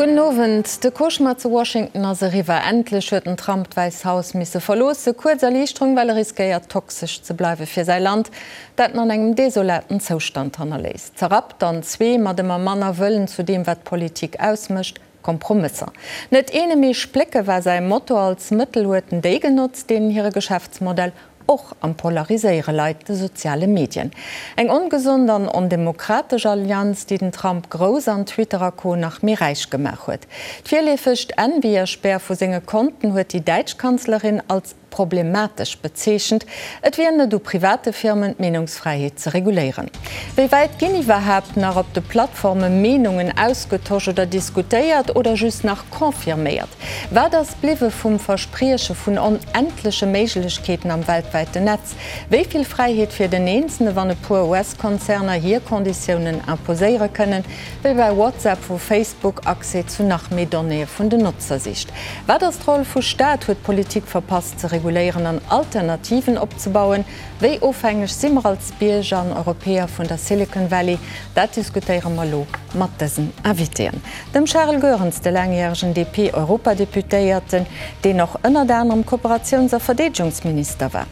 Gudden Owend. De Cauchemar zu Washington ass eriwwer. Endlech huet den Trump d'Wäiss Haus misse verloossen. Kuerz Erliichterung, well e riskéiert toxesch ze bleiwe fir säi Land, dat en an engem desolaten Zoustand hannerléisst. Zerrappt an zwee, mat ëmmer manner Wëllen zu deem, wat Politik ausmécht, Kompromësser. Net eene mee splécke war säi Motto. Als Mëttel huet en déi genotzt, deenen hire Geschäftsmodell och am Polariséiere leit, de soziale Medien. Eng ongesond an ondemokratesch Allianz, déi den Trump grouss an Twitter a Co. Nach méi räich gemaach huet. D'virleefegt Envierspär vu senge Konten huet déi däitsch Kanzlerin als problematesch bezeechent. Et wier net u private Firmen, d'Meenungsfräiheet ze reguléieren. Wéi wäit ginn iwwerhaapt nach op de Plattforme Meenungen ausgetosch oder diskutéiert oder just nach confirméiert? Wat ass bliwwe vum Versprieche vun onendleche Méiglechkeeten am weltwäiten Netz? Wéi vill Fräiheet fir den Eenzele wann e puer US-Konzerner hir Konditiounen imposéiere kënnen, wéi bei WhatsApp, wou Facebook Accès zu nach méi Donnéeë vun den Notzer sicht? Wat ass d'Roll vu Staat? Huet d'Politik verpasst ze reguléieren an Alternativen opzebauen? Wéi ofhängeg si mer als Bierger an Europäer vun der Silicon Valley? Dat diskutéiere mer elo mat dësen Invitéen. Dem Charel Goerens, de laangjäregen DP-Europadeputéierten, deen och ënnert anerem Kooperatiouns a Verdeedegungsminister war.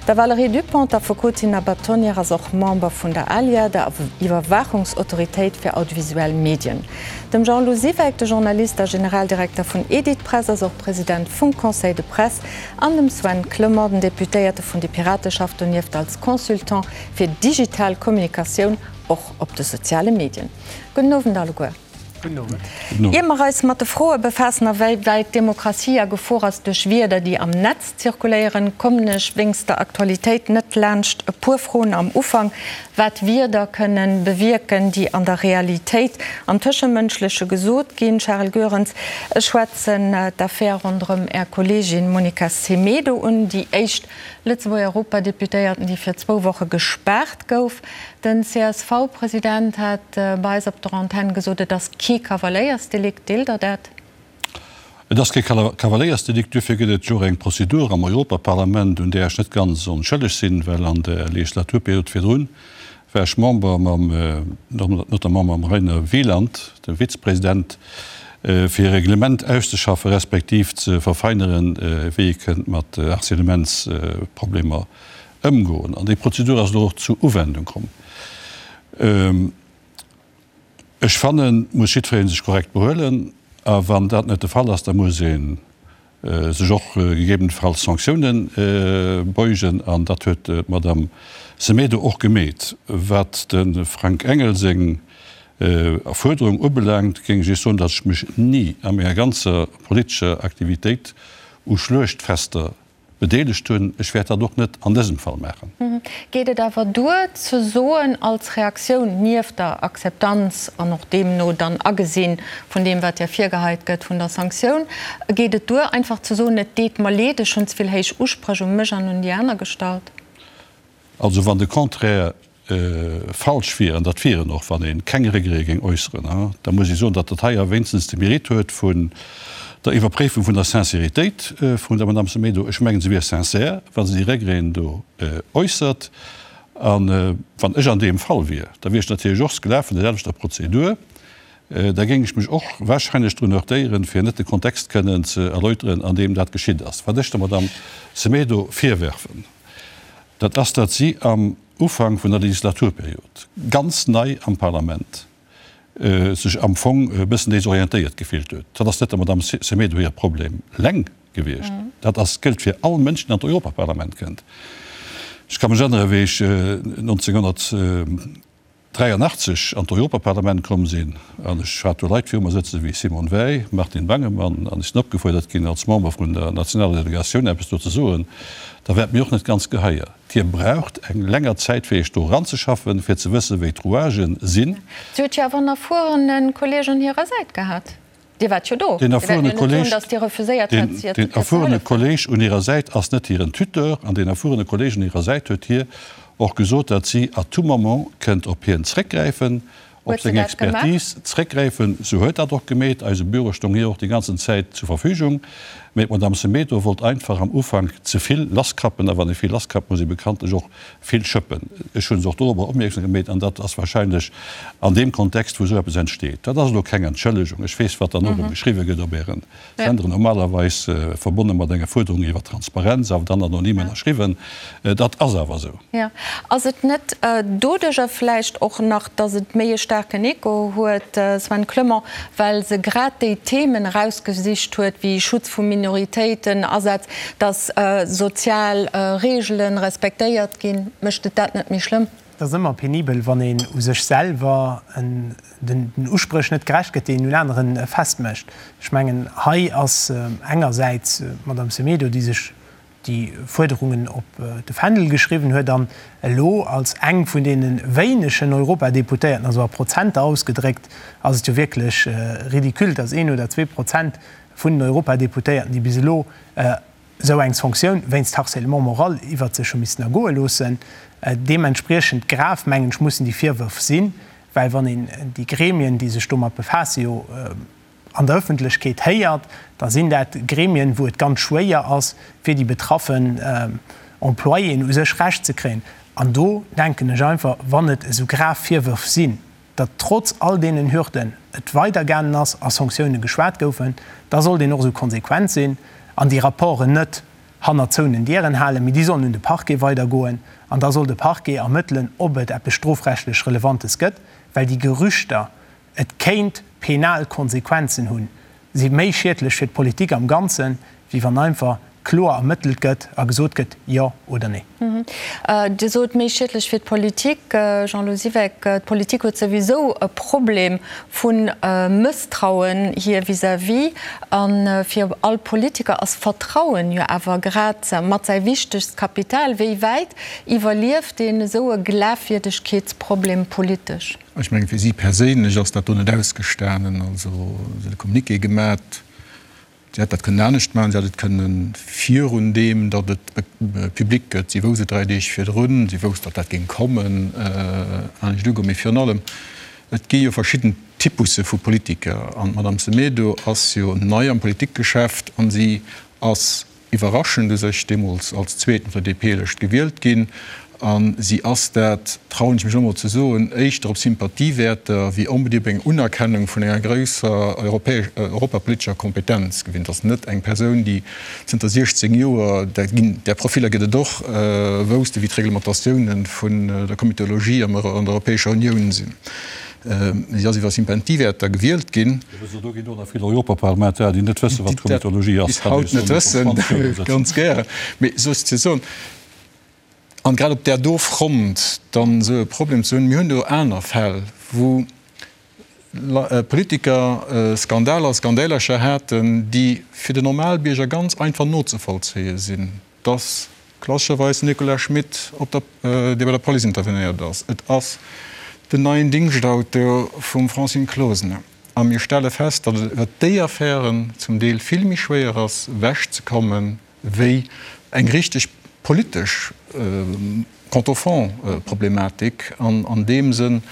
Der Valérie Dupont, d'Affekotin a Bâtonnière, ass och Member vun der ALIA, der Iwwerwaachungsautoritéit fir audiovisuell Medien. Dem Jean-Lou Siweck, de Journalist a Generaldirekter vun Editpress, ass och President vum Conseil de Presse, an dem Sven Clement, den Deputéierte vun de Pirate, schafft donieft als Consultant fir digital Kommunikatioun, och op de soziale Medien. Gudden Owend alleguer. Gudden Owend. Ier mer eis mat de Froe befaassen, a wéi wäit d'Demokratie a Gefor ass duerch Wierder, déi am Netz zirkuléieren, kommen ech wéinst der Aktualitéit net laanscht e puer Froen am Ufank, wat Wierder kënnen bewierken, déi an der Realitéit am Tëschemënschleche gesot ginn. Charel Goerens, ech schwätzen d'Affär ronderëm Är Kolleegin Monica Semedo un, déi éischt Lëtzebuerger Europadeputéierten, déi fir zwou Woche gespaart gouf. Den CSV-President hat bei eis op der Antenn gesot, et ass kee Kavaléiersdelikt. Deelt Der dat? Et ass kee Kavaléiersdelikt. Duerfir gëtt et jo och eng Prozedur am Europaparlament, un där ech net ganz onschëlleg sinn, well an der Legislaturperiod virdrun war ech Member mam, notamment mam Rainer Wieland, dem Vizepresident, fir e Reglement auszeschaffen, respektiv ze verfeineren, wéi ee kënnt mat Harcèlementsproblemer ëmgoen. An déi Prozedur ass elo och zu Uwendung komm. Ech fannen, muss jiddweree sech korrekt behuelen. A wann dat net de Fall ass, da muss ee sech och gegebenenfalls Sanktiounen beugen. An dat huet d'Madame Semedo och gemeet. Wat de Frank Engel seng Fuerderung ubelaangt, géing ech Iech soen, datt ech mech ni a menger ganzer politescher Aktivitéit u Schluechtfester bedeelegt hunn. Ech wäert dat och net an dësem Fall maachen. Geet et awer duer ze soen, als Reaktioun, nieft der Akzeptanz an och deemno dann Agesinn vun deem wat Dir virgeheit gëtt, vun der Sanktioun, geet et duer einfach ze soen, et deet mer leed, ech hunn ze vill héich Uspréch u mech an un déi aner gestallt? Also wann de Contraire falsch wier, an dat wier en och, wann ee keng Regrete géing äusseren, da muss ee soen, datt dat hei awer wéinstens de Mérite huet vun der Iwwerpréifung vun der Sincéritéit vun der Madame Semedo. Ech mengen, se wier sincère, wa se déi Regreten do äussert. A wann ech an deem Fall wier, da wier ech natierlech och Sklav vun der selwechter Prozedur. Da géing ech mech och wahrscheinlech drun heurtéieren, fir net de Kontext kënnen ze erläuteren, an deem dat geschitt ass. Wat ech der Madame Semedo virwerfen, dat ass, datt si am Ufank vun der Legislaturperiod, ganz nei am Parlament, sech am Fong e bëssen desorientéiert gefillt huet. Dat ass net der Madame Semedo hire Problem eleng gewiescht. Dat ass, gëllt fir all Mënsch, deen an d'Europaparlament kënnt. Ech ka mech erënnere wéi ech 1983 an d'Europaparlament komm sinn an ech hat do Leit viru mer sëtzen wéi Simone Veil, Martin Bangemann an ech sinn opgefuerdert ginn als Member vun der nationaler Delegatioun eppes do ze soen, da war et mir och net ganz geheier. Dir braucht eng länger Zäit fir Iech do eranzeschaffen, fir ze wëssen, wéi d'Rouagen sinn. Si huet jo awer en erfuerene Kolleg un hirer Säit gehat. Dir waart jo do. Deen erfuerene Kolleg, deen erfuerene Kolleg un hirer Säit ass net hiren Tuteur. An deen erfuerene Kolleg un hirer Säit huet hir och gesot, datt si à tout moment kënnt op hien zréckgräifen. Op seng Expertise zréckgräifen. Se huet dat och gemeet. Eise Büro stoung hir och déi ganzen Zäit zur Verfügung. Mee d'Madame Semedo wollt einfach am Ufank ze vill lasskrappen. A wann ee vill lasskrappt, muss ee bekanntlech och vill schëppen. Ech hu se och dorobber opmierksam gemeet. An dat ass wahrscheinlech an deem Kontext, wou esou eppes entsteet. Dat ass elo keng Entschëllegung. Ech weess, wat dann och erëm geschriwwe gëtt op Ären Senderen, normalerweis verbonne mat enger Fuerderung iwwer Transparenz, awer dann anonym ënnerschriwwen. Dat ass awer esou. Jo. Ass et net doduerjer vläicht och nach, datt et méi e staarken Echo huet, Sven Clement, well se grad déi Themen erausgesicht huet, wéi Schutz vu Minoritéiten, Asaz, datt sozial Reegele respektéiert ginn? Mécht et dat net méi schlëmm? Et ass ëmmer penibel, wann een u sech selwer den Uspréch net gerecht gëtt, déi een un anere festmécht. Ech mengen, hei ass engersäits d'Madame Semedo, déi sech déi Fuerderungen op de Fändel geschriwwen huet an elo als eng vun deene wéinegen Europadeputéierten, also a Prozenter ausgedréckt ass et jo wierklech ridicule, dass een oder 2% vun den Europadeputéierten, déi bis elo esou eng Sanktioun wéinst Harcèlement moral iwwert sech hu missen ergoe loossen. Deementspriechend grav, mengen ech, mussen déi Virwërf sinn, well wann een déi Gremien, déi sech domat befaassen, jo an der Ëffentlechkeet héiert, da sinn dat Gremien, wou et ganz schwéier ass, fir déi betraffen Employéen u sech Recht ze kréien. An do denken ech einfach, wann et esou grav Virwërf sinn, datt trotz all deenen Hürden et weidergaangen ass a Sanktioune geschwat goufen, da sollt een och esou konsequent sinn an déi Rapporten net hannert zouenen Dieren halen, mee déi sollen un de Parquet weidergoen an da soll de Parquet ermëttelen, ob et eppes strofrechtlech Relevantes gëtt, well déi Gerüchter, et kéint penal Konsequenzen hunn, si méi schiedlech fir d'Politik am Ganzen, wéi wann einfach kloer ermëttelt gëtt a gesot gëtt, jo oder nee. Dir sot, méi schiedlech fir d'Politik. Jean-Lou Siweck, d'Politik huet souwisou e Problem vu Mësstrauen hir vis-à-vis. A fir all Politiker ass Vertrauen jo awer grad mat säi wichtegst Kapital. Wéi wäit iwwerlieft een esou e Glafwierdegkeetsproblem politesch? Ech mengen, fir si perséinlech ass dat do net ausgestanen. Also se huet e Communiqué gemat. Si hätt dat kënnen anescht maachen. Si hätt et kënne virun deem, datt et public gëtt, si wousst et 3 Deeg virdrun, si wousst, datt dat géing kommen, anescht ugoen. Mee virun allem, et gi jo verschidden Typusse vu Politiker. An d'Madame Semedo ass jo nei am Politikgeschäft a si ass Iwwerraschend u sech deemools als Zweeten op der DP-Lëscht gewielt ginn. A si ass, dat trauen ech mech elo mol ze soen, éischter op Sympathiewäerter wéi onbedéngt op eng Unerkennung vun enger grousser europapolitescher Kompetenz gewinnt. Ass net eng Persoun, déi zënter 16 Joer, där ginn, där Profiller gëtt et och, wousste wéi d'Reglementatiounen vun der Komitologie an der Europäescher Unioun sinn. Si ass iwwer Sympathiewäerter gewielt ginn. Also do ginn och nach vill Europaparlamentarier, déi net wëssen, wat Komitologie ass. Déi dat bis haut net wëssen, ganz gären. Mee souzesoen, an grad op där do Front dann esou e Problem ze hunn, mir hunn do aner Fäll, wou Politiker Skandaler, Skandälercher haten, déi fir den Normalbierger ganz einfach nozevollzéie sinn. 't ass klassescherweis den Nicolas Schmit, op der, dee bei der Police intervenéiert ass. Et ass den neien Dingschtauto vum Francine Closener. A mir stelle fest, datt et iwwert déi Affären zum Deel vill méi schwéier ass, ewechzekommen, wéi eng richteg politesch Quant au fond, Problematik. An an deem Sënn,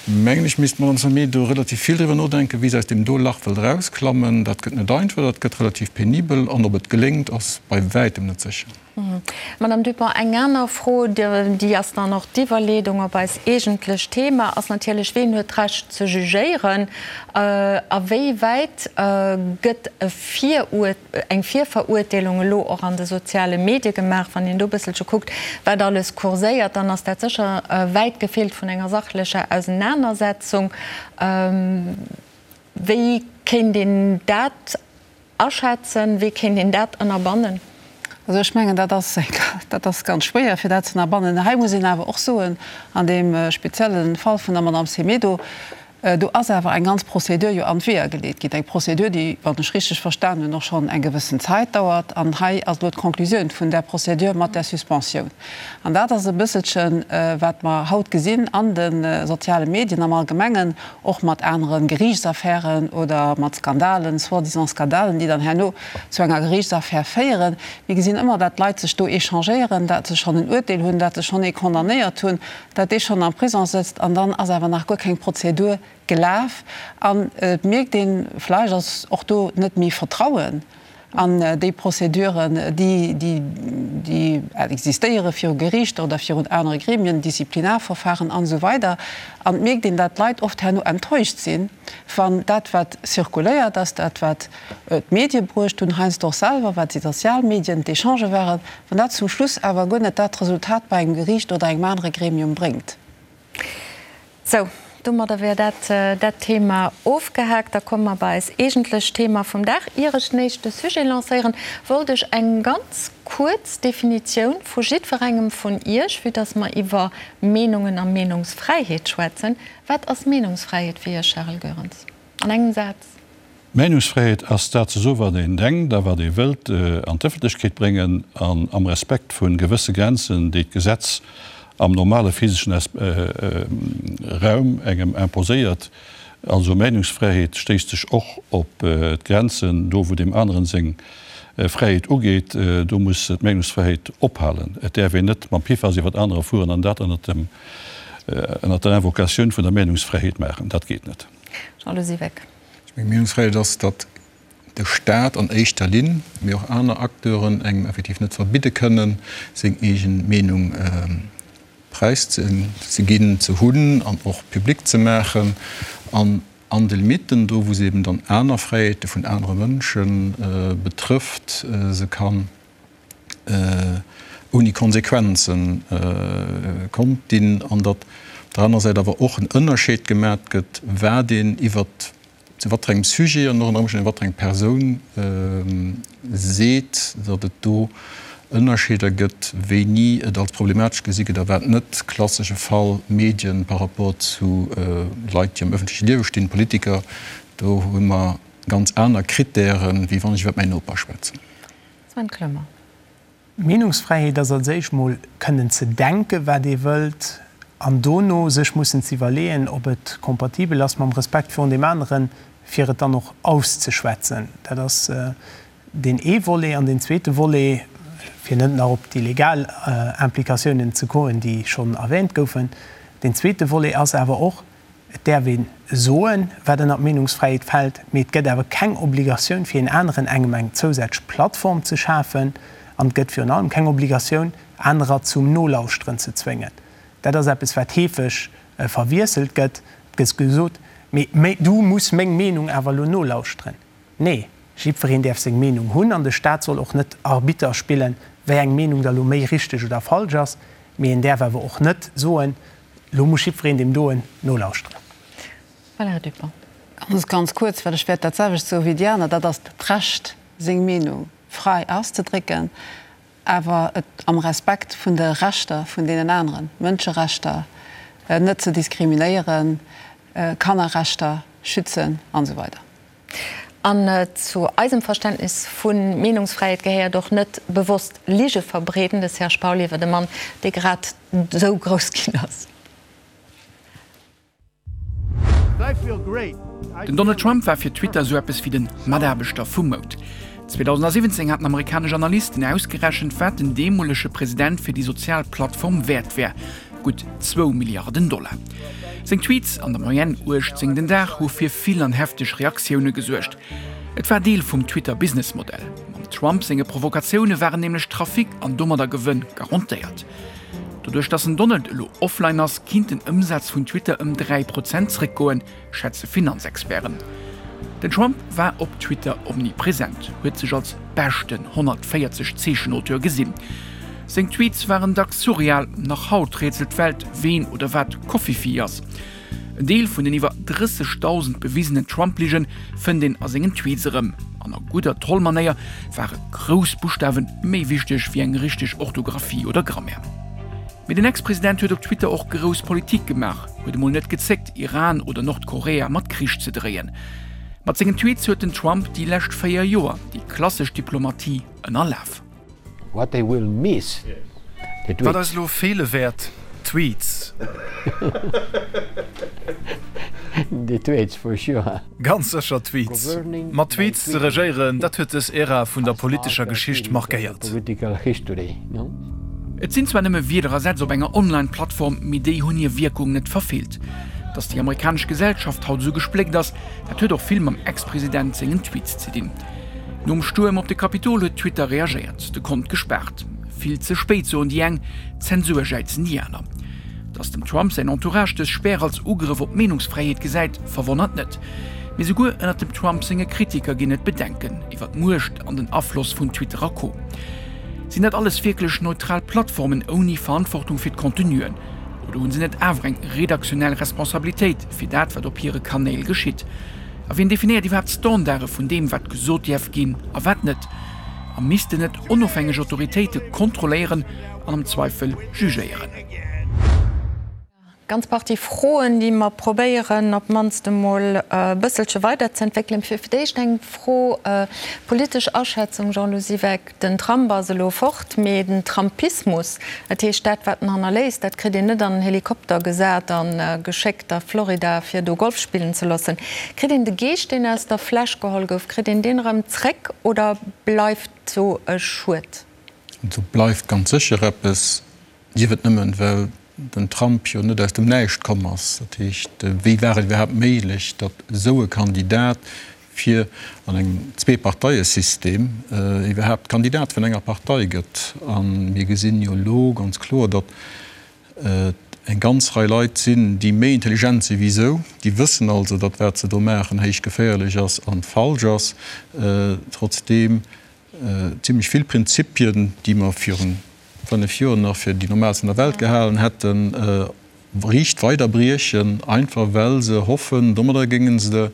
mengen ech, misst d'Madame Semedo relativ vill driwwer nodenken, wéi se aus deem do Lach wëllt erausklammen. Dat gëtt net einfach, dat gëtt relativ penibel. An ob et geléngt, ass bei wäitem net sécher. Madame Dupont, eng aner Fro, déi ass dann och d'Iwwerleedung op eist eegentlecht Thema, ass natierlech, Ween huet d'Recht ze jugéieren? A wéi wäit gëtt e Viruert. eng Virverurteelung elo och an de soziale Medie gemaach. Wann een do e bësselche kuckt, wat alles kurséiert, dann ass dat sécher wäit gefeelt vun enger sachlecher Ausenanersetzung. Wéi kéint een dat aschätzen? Wéi kéint een dat ënnerbannen? Also ech mengen, dat ass, dat ass ganz schwéier, fir dat ze ënnerbannen. Hei muss een awer och soen, an deem spezielle Fall vun der Madame Semedo. Do ass awer eng ganz Procédure jo an d'Weeër geleet ginn, eng Procédure, déi, wann ech richteg verstan hunn, och schonn eng gewëssen Zäit dauert. An hei ass elo d'Conclusioun vun där Procédure mat där Suspensioun. An dat ass e bësselchen, wat mer haut gesinn an de soziale Medien am Allgemengen, och mat anere Geriichtsaffären oder mat Skandalen, soi-disant Skandalen, déi dann herno zu enger Geriichtsaffär féieren. Mir gesinn ëmmer, dat d'Leit sech do échangéieren, dat se schonn en Uerteel hunn, dat se schonn ee condamnéiert hunn, dat dee schonn am Prison sëtzt an dann ass awer nach guer keng Prozedur gelaf. An et mierkt een, vläicht ass och do net méi Vertrauen an déi Prozeduren, déi déi existéiere viru Geriichter oder virun anere Gremien, Disziplinarverfahren an esou weider. An et mierkt een, dat d'Leit oft herno enttäuscht sinn, wann dat wat zirkuléiert ass, dat wat d'Medie bruecht hunn, heiansdo och selwer, wat déi sozial Medien, d'Echangë waren, wann dat zum Schluss awer guer net dat Resultat bei engem Geriicht oder engem anere Gremium bréngt. Sou, domadder wär dat dat Thema ofgehaakt. Da komme mer bei eis eegentlecht Thema vum Dag. Ier ech den éischte Sujet lancéieren, wollt ech eng ganz kuerz Definitioun vu jiddwerengem vun Iech, vue dass mer iwwer Meenungen a Meenungsfräiheet schwätzen. Wat ass Meenungsfräiheet fir Iech, Charel Goerens? An engem Saz. Meenungsfräiheet ass dat ze soen, wat een denkt a wat ee wëllt an d'Ëffentlechkeet bréngen, an am Respekt vu gewësse Grenzen, déi d'Gesetz am normale physeschen Raum engem imposéiert. Also Meenungsfräiheet stéisst sech och op d'Grenzen, do wou deem aneren seng Fräiheet ugeet, do muss d'Meenungsfräiheet ophalen. Et däerf een net mam Piffas iwwert anerer fueren an dat ënnert dem ënnert der Invocatioun vun der Meenungsfräiheet maachen. Dat geet net. Jean-Lou Siweck. Ech mengen, Meenungsfräiheet ass, datt de Staat an éischter Linn, mee och aner Acteuren engem effektiv net verbidde kënnen, seng eegen Meenung präiszeginn, ze hunn an och public ze maachen. An an de Limitten, do wou se eben dann aner Fräiheete vun anere Mënsche betrëfft, se kann ouni Konsequenzen konnt dinn, an datt op der anerer Säit awer och en Ënnerscheed gemat gëtt, wat een iwwer zu wat fir engem Sujet an och ënner Ëmstänn iwwer wat fir eng Persoun seet, datt et do Ënnerscheeder gëtt, wéini et als problematesch gesi gëtt a wat net. Klassesche Fall, Medien par rapport zu Leit, déi am ëffentleche Liewe stinn, Politiker, do hu mer ganz aner Krittären, wéi wann ech iwwer mäin Noper schwätzen. Sven Clement. Meenungsfräiheet ass als éischt mol kënnen ze denken, wat ee wëllt, an dono sech mussen ze iwwerleeën, ob et kompatibel ass mam Respekt virun deem aneren, fir et dann och auszeschwätzen. Dat ass deen ee Volet. An deen zweete Volet, fir net nach op déi legal Implikatiounen ze goen, déi schonn erwähnt goufen, deen zweete Volet ass awer och, Et däerf ee soen, wat ënner d'Meenungsfräiheet fält, mee et gëtt awer keng Obligatioun, fir een aneren engem eng zousätzlech Plattform ze schafen. An et gëtt virun allem keng Obligatioun, anerer zum Nolauschteren ze zwéngen. Dat ass eppes, wat heefeg verwiesselt gëtt. Et gëtt gesot, Mee du muss meng Meenung awer elo nolauschteren. Nee, jiddwereen däerf seng Meenung hunn an de Staat soll och net Arbitter spillen, wéi eng Meenung da lo méi richteg oder falsch ass. Mee en däerf awer och net soen, Lo muss jiddwereen deem doen nolauschteren. Valérie Dupong. Ganz, ganz kuerz, well ech wäert dat selwecht soe wéi déi aner, Dat ass d'Recht, seng Meenung frai auszedrécken, awer et am Respekt vun de Rechter vun deenen aneren, Mënscherechter, net ze diskriminéieren, Kannerrechter schützen an esou weider. An zu eisem Verständnis vu Meenungsfräiheet gehéiert och net bewosst Lige verbreeden. De Serge Pauly iwwer e Mann, dee grad esou grouss ginn ass. Den Donald Trump war fir Twitter esou eppes wéi den Mataarbechter vum Mount. 2017 haten amerikanesch Analysten ausgerechent, wat den deemolege President fir déi sozial Plattform wäert wär, gutt zwou Milliarden Dollar. Seng Tweets, an der Moyenne 18 den Dag, hu fir vill an hefteg Reaktioune gesuergt. Et war Deel vum Twitter-Businessmodell. Mam Trump senge Provokatioune waren nämlech Trafic an domadder Gewënn garantéiert. Doduerch datt den Donald elo offline ass, kinnt den Ëmsaz vun Twitter ëm 3 Prozent zréckgoen, schätze Finanzexperten. Den Trump war op Twitter omnipresent, huet sech als beschten 140 Zeechen-Auteur gesinn. Seng Tweets waren dacks surreal, nach haut rätselt d'Welt, ween oder wat Covfefe ass. En Deel vun den iwwer 30.000 bewisenen Trump-Ligen fënnt een a sengen Tweets erëm. An a gudder Troll-Manéier ware grouss Buschtawe méi wichteg wéi eng richteg Orthografie oder Grammaire. Mee den Ex-President huet op Twitter och grouss Politik gemaach. Huet emol net gezéckt, Iran oder Nordkorea mat Krich ze dréien. Mat sengen Tweets huet den Trump déi lescht 4 Joer déi klassesch Diplomatie ënnerlaf. What they will miss, the tweets. Wat eis elo feele wäert, d'Tweets. The tweets, for sure. Ganz sécher d'Tweets. Mat Tweets ze regéieren, dat huet dës Ära vun der politescher Geschicht markéiert. Et sinn zwar nëmme Wierder a Sätz op enger Online-Plattform, mee déi hunn hir Wierkung net verfeelt. Datt déi amerikanesch Gesellschaft haut esou gespléckt ass, dat huet och vill mam Ex-President sengen Tweets ze dinn. Nom Stuerm op de Kapitol huet Twitter reagéiert, de Kont gespaart. Vill ze spéit, soen déi eng, Zensur jäizen déi aner. Datt dem Trump säin Entourage dës Spär als Ugrëff op d'Meenungsfräiheet gesäit, verwonnert net. Mee souguer ënnert dem Trump senge Kritiker ginn et Bedenken iwwer d'Muecht an den Afloss vun Twitter a Co. Sinn dat alles wierklech neutral Plattformen ouni Verantwortung fir d'Contenuen? Oder hu se net awer eng redaktionell Responsabilitéit fir dat, wat op hire Kanéil geschitt? A wien definéiert iwwerhaapt d'Standarde vun deem, wat gesot däerf ginn a wat net? A missten net onofhängeg Autoritéite kontrolléieren an am Zweifel jugéieren? Ganz Partie Froen, déi mer probéieren op d'mannst emol e bësselche weiderzeentwéckelen. Fir d'éischt eng Fro, politesch Aschätzung, Jean-Lou Siweck, Den Trump ass elo fort, mee den Trumpismus, dat heescht dat wat en hannerléisst, dat kritt een net an en Helikopter gesat a geschéckt a Florida fir do Golf spillen ze loossen. Kritt een de Geescht, deen aus der Fläsch geholl gouf, kritt een deen erëm zréck oder bleift do e Schued? Do bleift ganz sécher eppes. Sief et nëmmen, well den Trump jo net aus dem Näischt komm ass. Dat heescht, wéi war et iwwerhaapt méiglech, datt esou e Kandidat fir an engem Zweeparteiesystem iwwerhaapt Kandidat vun enger Partei gëtt? A mir gesinn jo elo ganz kloer, datt et eng ganz Rei Leit sinn, déi méi intelligent si wéi esou, déi wëssen also, datt wat se do maachen héich geféierlech ass a falsch ass, trotzdeem zimlech vill Prinzipien, déi mer virun 5 Joer nach fir déi normaalst an der Welt gehalen hätten, riicht weider briechen, einfach well se hoffen, domadder géinge se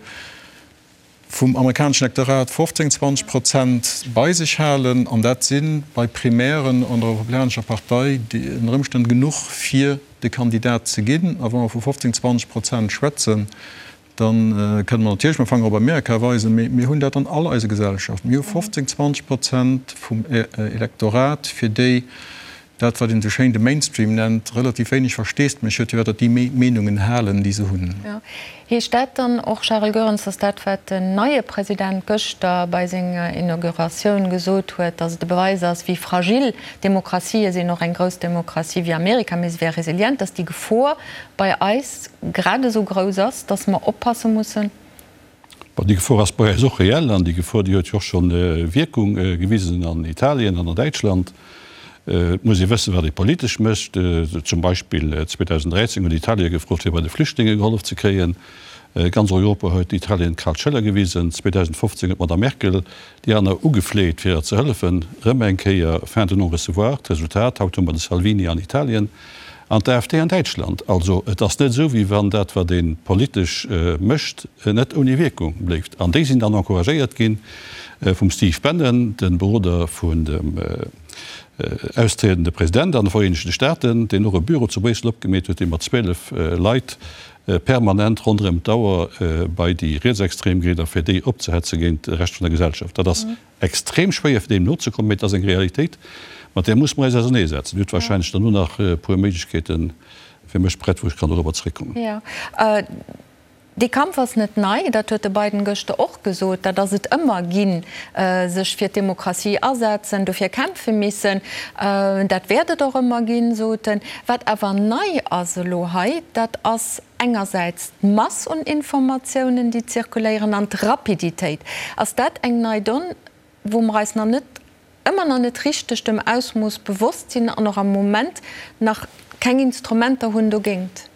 vum amerikaneschen Elektorat 15, 20 Prozent bei sech halen. An dat si bei Primären an der Republikanescher Partei ënner Ëmstänn genuch, fir de Kandidat ze ginn. A wa mer vu 15, 20 Prozent schwätzen, Da kënne mer natierlech mam Fanger op Amerika weisen, mee mir hunn dat an all eise Gesellschaften. Mir hu 15, 20 Prozent vum Elektorat, fir déi dat, wat een esou schéin de Mainstream nennt, relativ wéineg Versteesdemech huet, firwat datt déi méi Meenungen halen, déi se hunn. Heescht dat dann och, Charel Goerens, datt dat, wat den neie President gëschter bei senger Inauguratioun gesot huet, datt et e Beweis ass, wéi fragil Demokratië sinn, och eng grouss Demokratie wéi Amerika, mee se wär resilient, datt déi Gefor bei eis grad esou grouss ass, dass mer oppasse mussen. Bon, déi Gefor ass bei eis och reell an déi Gefor, déi huet jo och scho Wierkung gewisen an Italien an an Däitschland. Et muss ee wëssen, wat ee politesch mécht. Zum Beispill 2013 huet Italien gefrot, fir bei de Flüchtlinge gehollef ze kréien. Ganz Europa huet Italien d'kal Schëller gewisen. 2015 huet d'Madame Merkel déi aner ugefleet, fir der ze hëllefen. Erëm eng Kéier fin de non-recevoir. D'Resultat, haut hu mer de Salvini an Italien. An d'AfD an Däitschland. Also et ass net esou, wéi wann dat, wat ee politesch mécht, net ouni Wierkung bléift. An déi sinn dann encouragéiert gi vum Steve Bannon, de Beroder vun dem austriedende President an de Vereenegte Staaten, deen och e Büro zu Bréissel opgemeet huet, dee mat 12 Leit permanent ronderëm d'Auer bei déi Rietsextrem geet a fir déi opzehetze géint de Rescht vun der Gesellschaft. Dat ass Extrem schwéier fir deem nozekommen, mee et ass eng Realitéit, mat där musse mer eis auserneesetzen. Dir hutt wahrscheinlech derno nach e puer Méiglechkeete fir mech prett, wou ech kann dorobber zréckkommen. Jo, dee Kampf ass net nei, dat huet de Biden gëschter och gesot. Dat ass et ëmmer ginn, sech fir d'Demokratie asetzen, dofir kämpfe missen. Dat wäert et och ëmmer ginn, sot en. Wat awer nei ass elo hei, dat ass engersäits d'Mass un Informatiounen, déi zirkuléieren, an d'Rapiditéit. Ass dat eng nei Donn, wou mer eis nach net, ëmmer nach net richteg dem Ausmooss bewosst sinn an och am Moment nach keng Instrumenter hunn dogéint?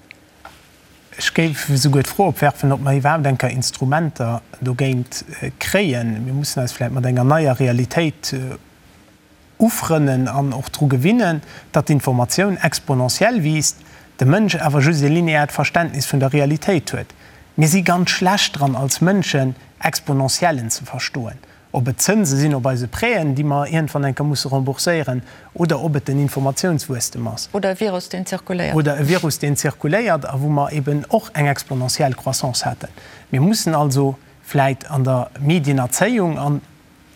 Ech géif esouguer d'Fro opwerfen, ob mer iwwerhaapt eng Kéier Instrumenter dogéint kréien. Mir mussen eis vläicht mat enger neier Realitéit ufrënnen an och dru gewinnen, datt d'Informatioun exponentiell wiisst, de Mënsch awer just e lineaert Verständnis vun der Realitéit huet. Mir si ganz schlecht dran als Mënschen, Exponentiellen ze verstoen. Ob et Zënse sinn op eise Prêten, déi mer iergendwann eng Kéier musse rembourséieren, oder ob et den Informatiounswuesstem ass. Oder e Virus, deen zirkuléiert. Oder e Virus, deen zirkuléiert a wou mer eben och eng exponentiell Croissance haten. Mir mussen also vläit an der Medienerzéiung, an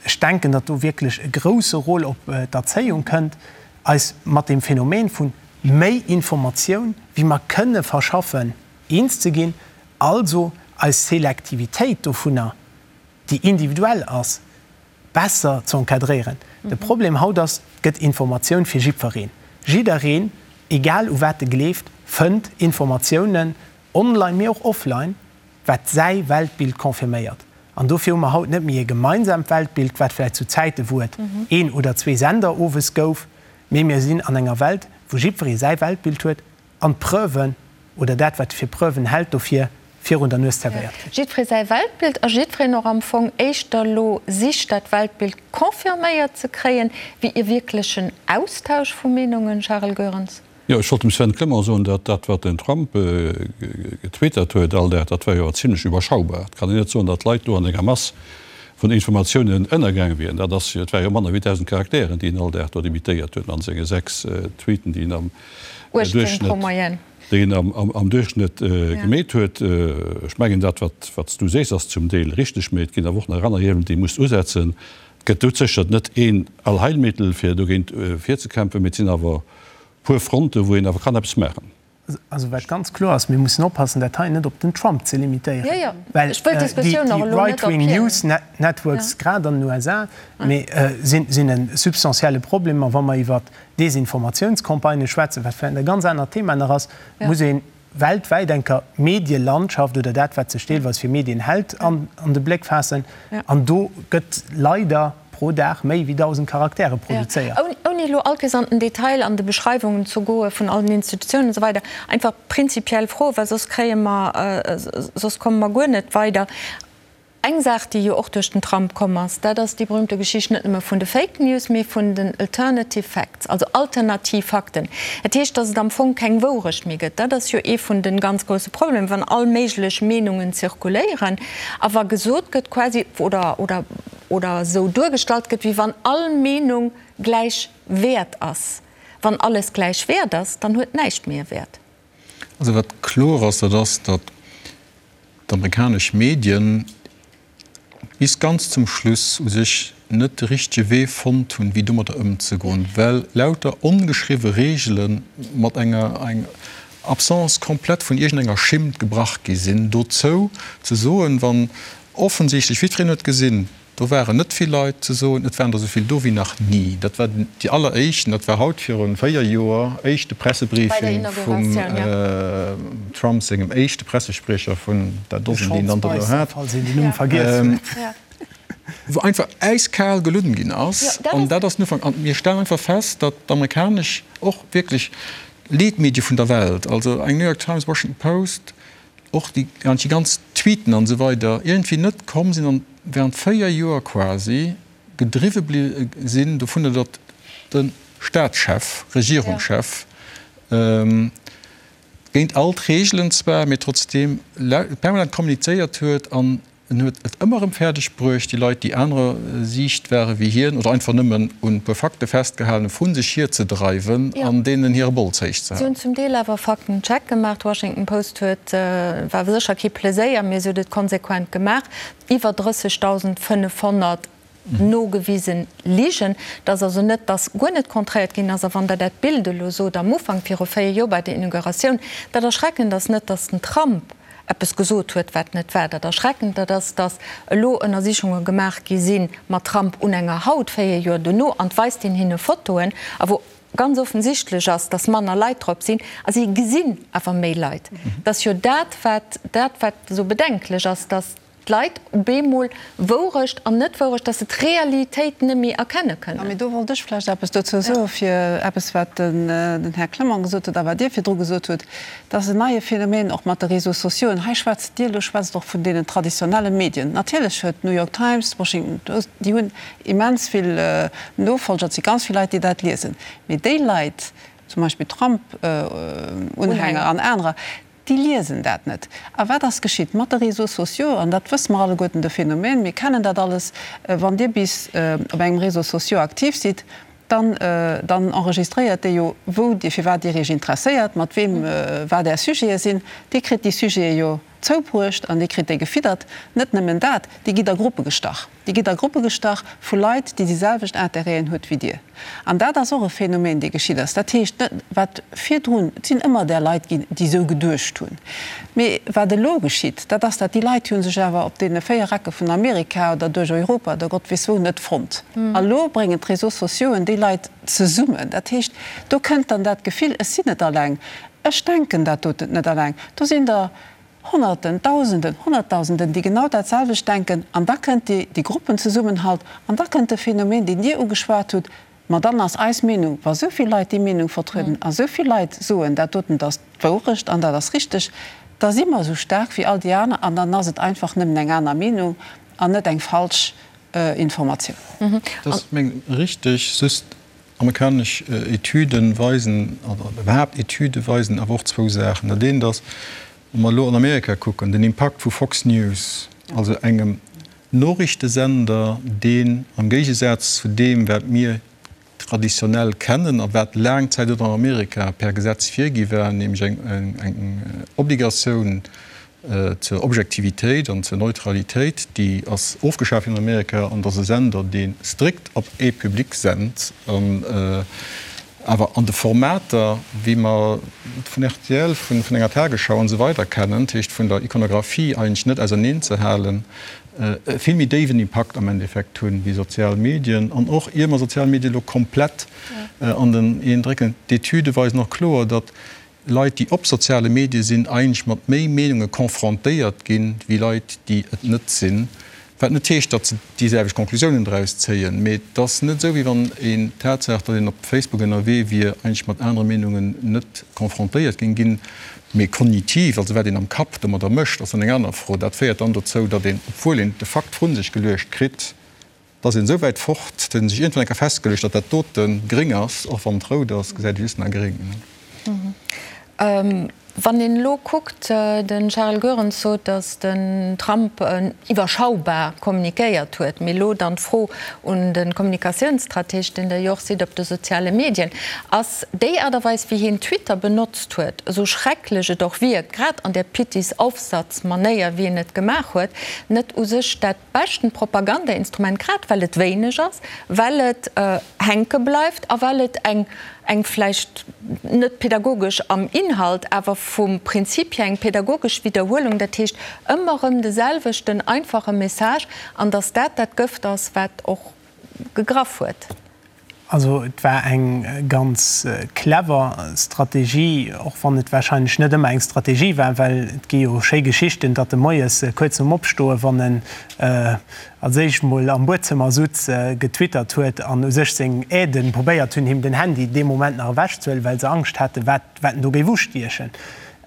ech denken, datt do wierklech e grouse Rôle op d'Erzéiung kënnt, eis mat deem Phänomen vu méi Informatioun, wéi mer kënne verschaffen, eens ze ginn, also eis Selektivitéit dovunner, déi individuell ass, besser ze encadréieren. De Problem haut ass, et gëtt Informatioun fir jiddwereen. Jiddereen, egal u wat e gleeft, fënnt Informatiounen, online mee och offline, wat säi Weltbild confirméiert. An dofir hu mer haut net méi e gemeinsaamt Weltbild, wat vläicht zu Zäite wou et een oder zwee Sender owes gouf, mee mir sinn an enger Welt, wou jiddweree säi Weltbild huet an d'Preuven oder dat, wat e fir Preuven hält, dofir virun der Nues zerwéiert kritt. Jiddweree säi Weltbild a jiddwereen och am Fong éischter elo sicht, dat Weltbild confirméiert ze kréien, wéi e wierklechen Austausch vu Meenungen, Charel Goerens. Jo, ech wollt dem Sven Clement soen, datt dat, wat den Trump getwittert huet all Dag, dat war jo awer zimlech iwwerschaubar. Et kann een net soen, datt d'Leit do an enger Mass vun Informatiounen ënnergaang wieren. Dat ass jo, et ware jo manner wéi 1.000 Charakteren, déi en all Dag do demitéiert huet an senge 6 Tweeten, déi en am 18 pro Duerchschnëtt, Moyenne. déi en am Duerchschnëtt gemeet huet. Ech mengen, dat, wat, wat s du sees, ass zum Deel richteg, mee et ginn awer och nach aner Hiewelen, déi ee muss usetzen. Et gëtt doudsécher net een Allheilmittel, fir dogéint virzekämpfen, mee et sinn awer puer Fronten, wou een awer kann eppes maachen. Also wat ganz kloer ass, mir mussen oppassen, dat hei net op den Trump ze limitéieren, well déi right-wing news networks, grad an den USA, mee sinn e substantielle Problem. A wa mer iwwer Desinformatiounscampagnë schwätzen, wat vläicht e ganz anert Thema nach ass, muss ee weltwäit enker d'Medielandschaft oder dat, wat sech deelweis fir Medien hält, an de Bléck faassen. An do gëtt leider pro Dag méi wéi 1.000 Charaktere produzéiert. Ouni elo all Kéiers an den Detail an de Beschreiwungen ze goe vun all den Institutiounen an esou weider, einfach prinzipiell Froen, well soss kréie mer, soss komme mer guer net weider. Eng Saach, déi jo och duerch den Trump komm ass, dat ass déi berühmte Geschicht net nëmme vun de Fake News, mee vun den Alternative Facts, also alternativ Fakten. Dat heescht, datt et am Fong keng Wourecht méi gëtt. Dat ass jo ee vun de ganz grousse Problemer, wann all méiglech Meenungen zirkuléieren a wa gesot gëtt quasi oder, oder, oder esou duergestallt gëtt, wéi wann all Meenung gläich wäert ass. Wann alles gläich wäert ass, dann huet näischt méi e Wäert. Also wat kloer ass, dat ass, datt d'amerikanesch Medien bis ganz zum Schluss u sech net de richtege Wee fonnt hunn, wéi domadder ëmzegoen, well lauter ongeschriwwe Reegele mat enger Absence complète vun iergendenger Schimmt gebrach gi sinn. Dozou ze soen, wann offensichtlech, jiddwereen huet gesinn, Do waren net vill Leit, ze soen, et waren der esou vill do wéi nach ni. Dat war déi alleréischten, dat war haut viru 4 Joer, éischte Pressebriefing vum Trump sengem éischte Pressespriecher vun der Dosen, déi en dann dono hat, wou einfach äiskal gelunn ginn ass. An dat ass den Ufank. An mir stellen einfach fest, datt d'amerikanesch, och wierklech Leetmedie vun der Welt, also eng New York Times, Washington Post, och déi ganz Tweeten an esou weider iergendwéi net komm sinn an während 4 Joer quasi gedriwwe bliwwe sinn dovunner, datt de Staatschef, Regierungschef géint all d'Reegelen zwar, mee trotzdeem permanent kommunizéiert huet an En huet et ëmmer erëm fäerdeg bruecht, déi Leit, déi anerer Siicht ware wéi hien oder einfach nëmmen un e puer Fakte festgehalen hunn, vu sech hierzedreiwen an deenen hire Bols héich ze Si hunn halen. zum Deel awer Faktencheck gemaach. D'Washington Post huet, war sécher kee Pleséier, mee se huet et konsequent gemaach, iwwer 30.500 nogewisen Ligen. Et ass also net, datt guer net kontréiert ginn ass. A wann Der dat Bild elo sot am Ufank, viru 4 Joer bei der Inauguratioun, dat Erschreckend ass net, datt den Trump eppes gesot huet, wat net war. Dat Erschreckend, dat ass, datt elo Ënnersichunge gemaach gi si mat Trump un enger Haut, 4 Joer dono, an et weist een hinne Fotoen, a wou ganz offensichtlech ass, datt manner Leit drop sinn, a si gesinn awer méi Leit. Et ass jo dat, wat, dat wat esou bedenklech ass, datt d'Leit op eemol Wourecht an Net-Wourecht, dass se d'Realitéit net méi erkenne kënnen. Mee do wollt ech vläicht eppes dozou soen, fir eppes, wat den Här Clement gesot huet a wat Dir virdru gesot hutt. Dat ass en neie Phänomen och mat de Réseaux sociauxen. Hei schwätzt Dir, elo schwätzt och vun deenen traditionelle Medien. Natierlech huet d'New York Times, d'Washington Post, déi hunn immens vill Nofolger, et si ganz vill Leit, déi dat liesen. Mee déi Leit, zum Beispill Trump-Unhänger an anerer,. Déi liesen dat net. A wat ass geschitt mat de Réseaux sociaux? An dat wësse mer alleguerten, de Phänomen, mir kennen dat alles, Wann Dir bis op engem Réseau social aktiv sidd, dann, dann enregistréiert dee jo, wou Dir, firwat Dir Iech interesséiert, mat weem, wat Är Sujete sinn. Dir kritt déi Sujete jo zoubruecht an Dir kritt déi gefiddert. Net nëmmen dat, Dir gitt a Gruppe gestach. Dir gitt a Gruppe gestach vu Leit, déi déi selwecht Interêten huet wéi Dir. An dat ass och e Phänomen, dee geschitt ass. Dat heescht, net wat virdrun, et sinn ëmmer där Leit ginn, déi esou geduecht hunn. Mee wat elo geschitt, dat ass, dat déi Leit hu sech awer op deene 4 Ecke vun Amerika oder duerch Europa oder Gott weess wou net fonnt. A lo bréngen d'Réseaux sociauxen déi Leit zesummen. Dat heescht, do kënnt dann dat Gefill, ech sinn net alleng, ech denken dat doten net alleng, do sinn der Honnerten, Dausenden, Honnertdausenden, déi genau dat selwecht denken, an da kënnt déi, dee Gruppenzesummenhalt, an da kënnt de Phänomen, deen Dir ugeschwat hutt, ma dann ass eis Meenung, wa sou vill Leit déi Meenung vertrieden a sou vill Leit soen, dat doten ass d'Wourecht an dat ass richteg, da si mer esou staark wéi all déi aner an dann ass et einfach nëmmen eng aner Meenung an net eng falsch Informatioun. Dat ass meng richteg, just Amerikanesch Etüde weisen, oder iwwerhaapt Etüde weisen awer och zwou Saachen. Dat eent ass, wa mer elo an Amerika kucken, den Impakt vu Fox News, also engem Noriichtesender, deen am Géigesaz zu deem, wat mir traditionell kennen a wat laang Zäit och an Amerika per Gesetz virgi war, nämlech eng Obligatioun Zur Objektivitéit an zur Neutralitéit, déi ass ofgeschaf ginn an Amerika, an et ass e Sender, dee strikt op ee Public sent, an awer an de Formater, wéi mer et vun rtl, vun enger Tagesschau an esou weider kennen, dat heescht vun der Ikonographie eigentlech net auserneen ze halen, e vill méi déiwen Impakt am Endeffekt hunn wéi sozial Medien. An och ier mer sozial Medien elo komplett an den een drécken, d'Etüde weisen och kloer, datt Leit, déi op soziale Medie sinn, eigentlech mat méi Meenunge confrontéiert ginn, wéi Leit, déi et net sinn. Wat net heescht, datt se déi selwecht Conclusiounen draus zéien, mee et ass net esou, wéi wann een d'Tatsaach, datt een op Facebook ënnerwee wier, eigentlech mat anere Meenungen net confrontéiert géing ginn. Mee kognitiv, also wat een am Kapp domadder mécht, ass dann eng aner Fro. Dat féiert dann dozou, datt een, obwuel een de Fakt vrun sech geluecht kritt, Et ass een esou wäit fort, datt een sech iergendwann eng Kéier festgeluecht, datt dat dote gréng ass, och wann et rout ass, gesäit ee just nach gréng. Wann een elo kuckt, de Charel Goerens sot, datt den Trump iwwerschaubar kommunikéiert huet. Mee elo dann d'Fro un de Kommunikatiounsstrateg, deen Der jo och sidd op de soziale Medien, Ass déi Aart a Weis, wéi hien Twitter benotzt huet, esou schrecklech et och wierkt, grad an där Pittis-Aufsatz-Manéier, wéi en et gemaach huet, net u sech dat Beschten Propagandainstrument, grad well et wéineg ass, well et hänke bleift a well et eng, eng vläicht net pädagogesch am Inhalt, awer vum Prinzip hier eng pädagogesch Widderhuelung, dat heescht ëmmer erëm de selwechten einfache Message, an datt dat dat Gëft ass, wat och gegraff huet. Also et war eng ganz clever Strategie, och wann et warscheinlech net ëmmer eng Strategie war, well et gi jo schéi Geschichten, datt e moies kuerz nom Opstoen, wann en als éischt mol am Buedzëmmer sutz, getwittert huet an u sech seng Aiden probéiert hunn, him den Handy dee Moment nach ewechzehuelen, well se Angscht haten, wat wat en do géif ustiechen.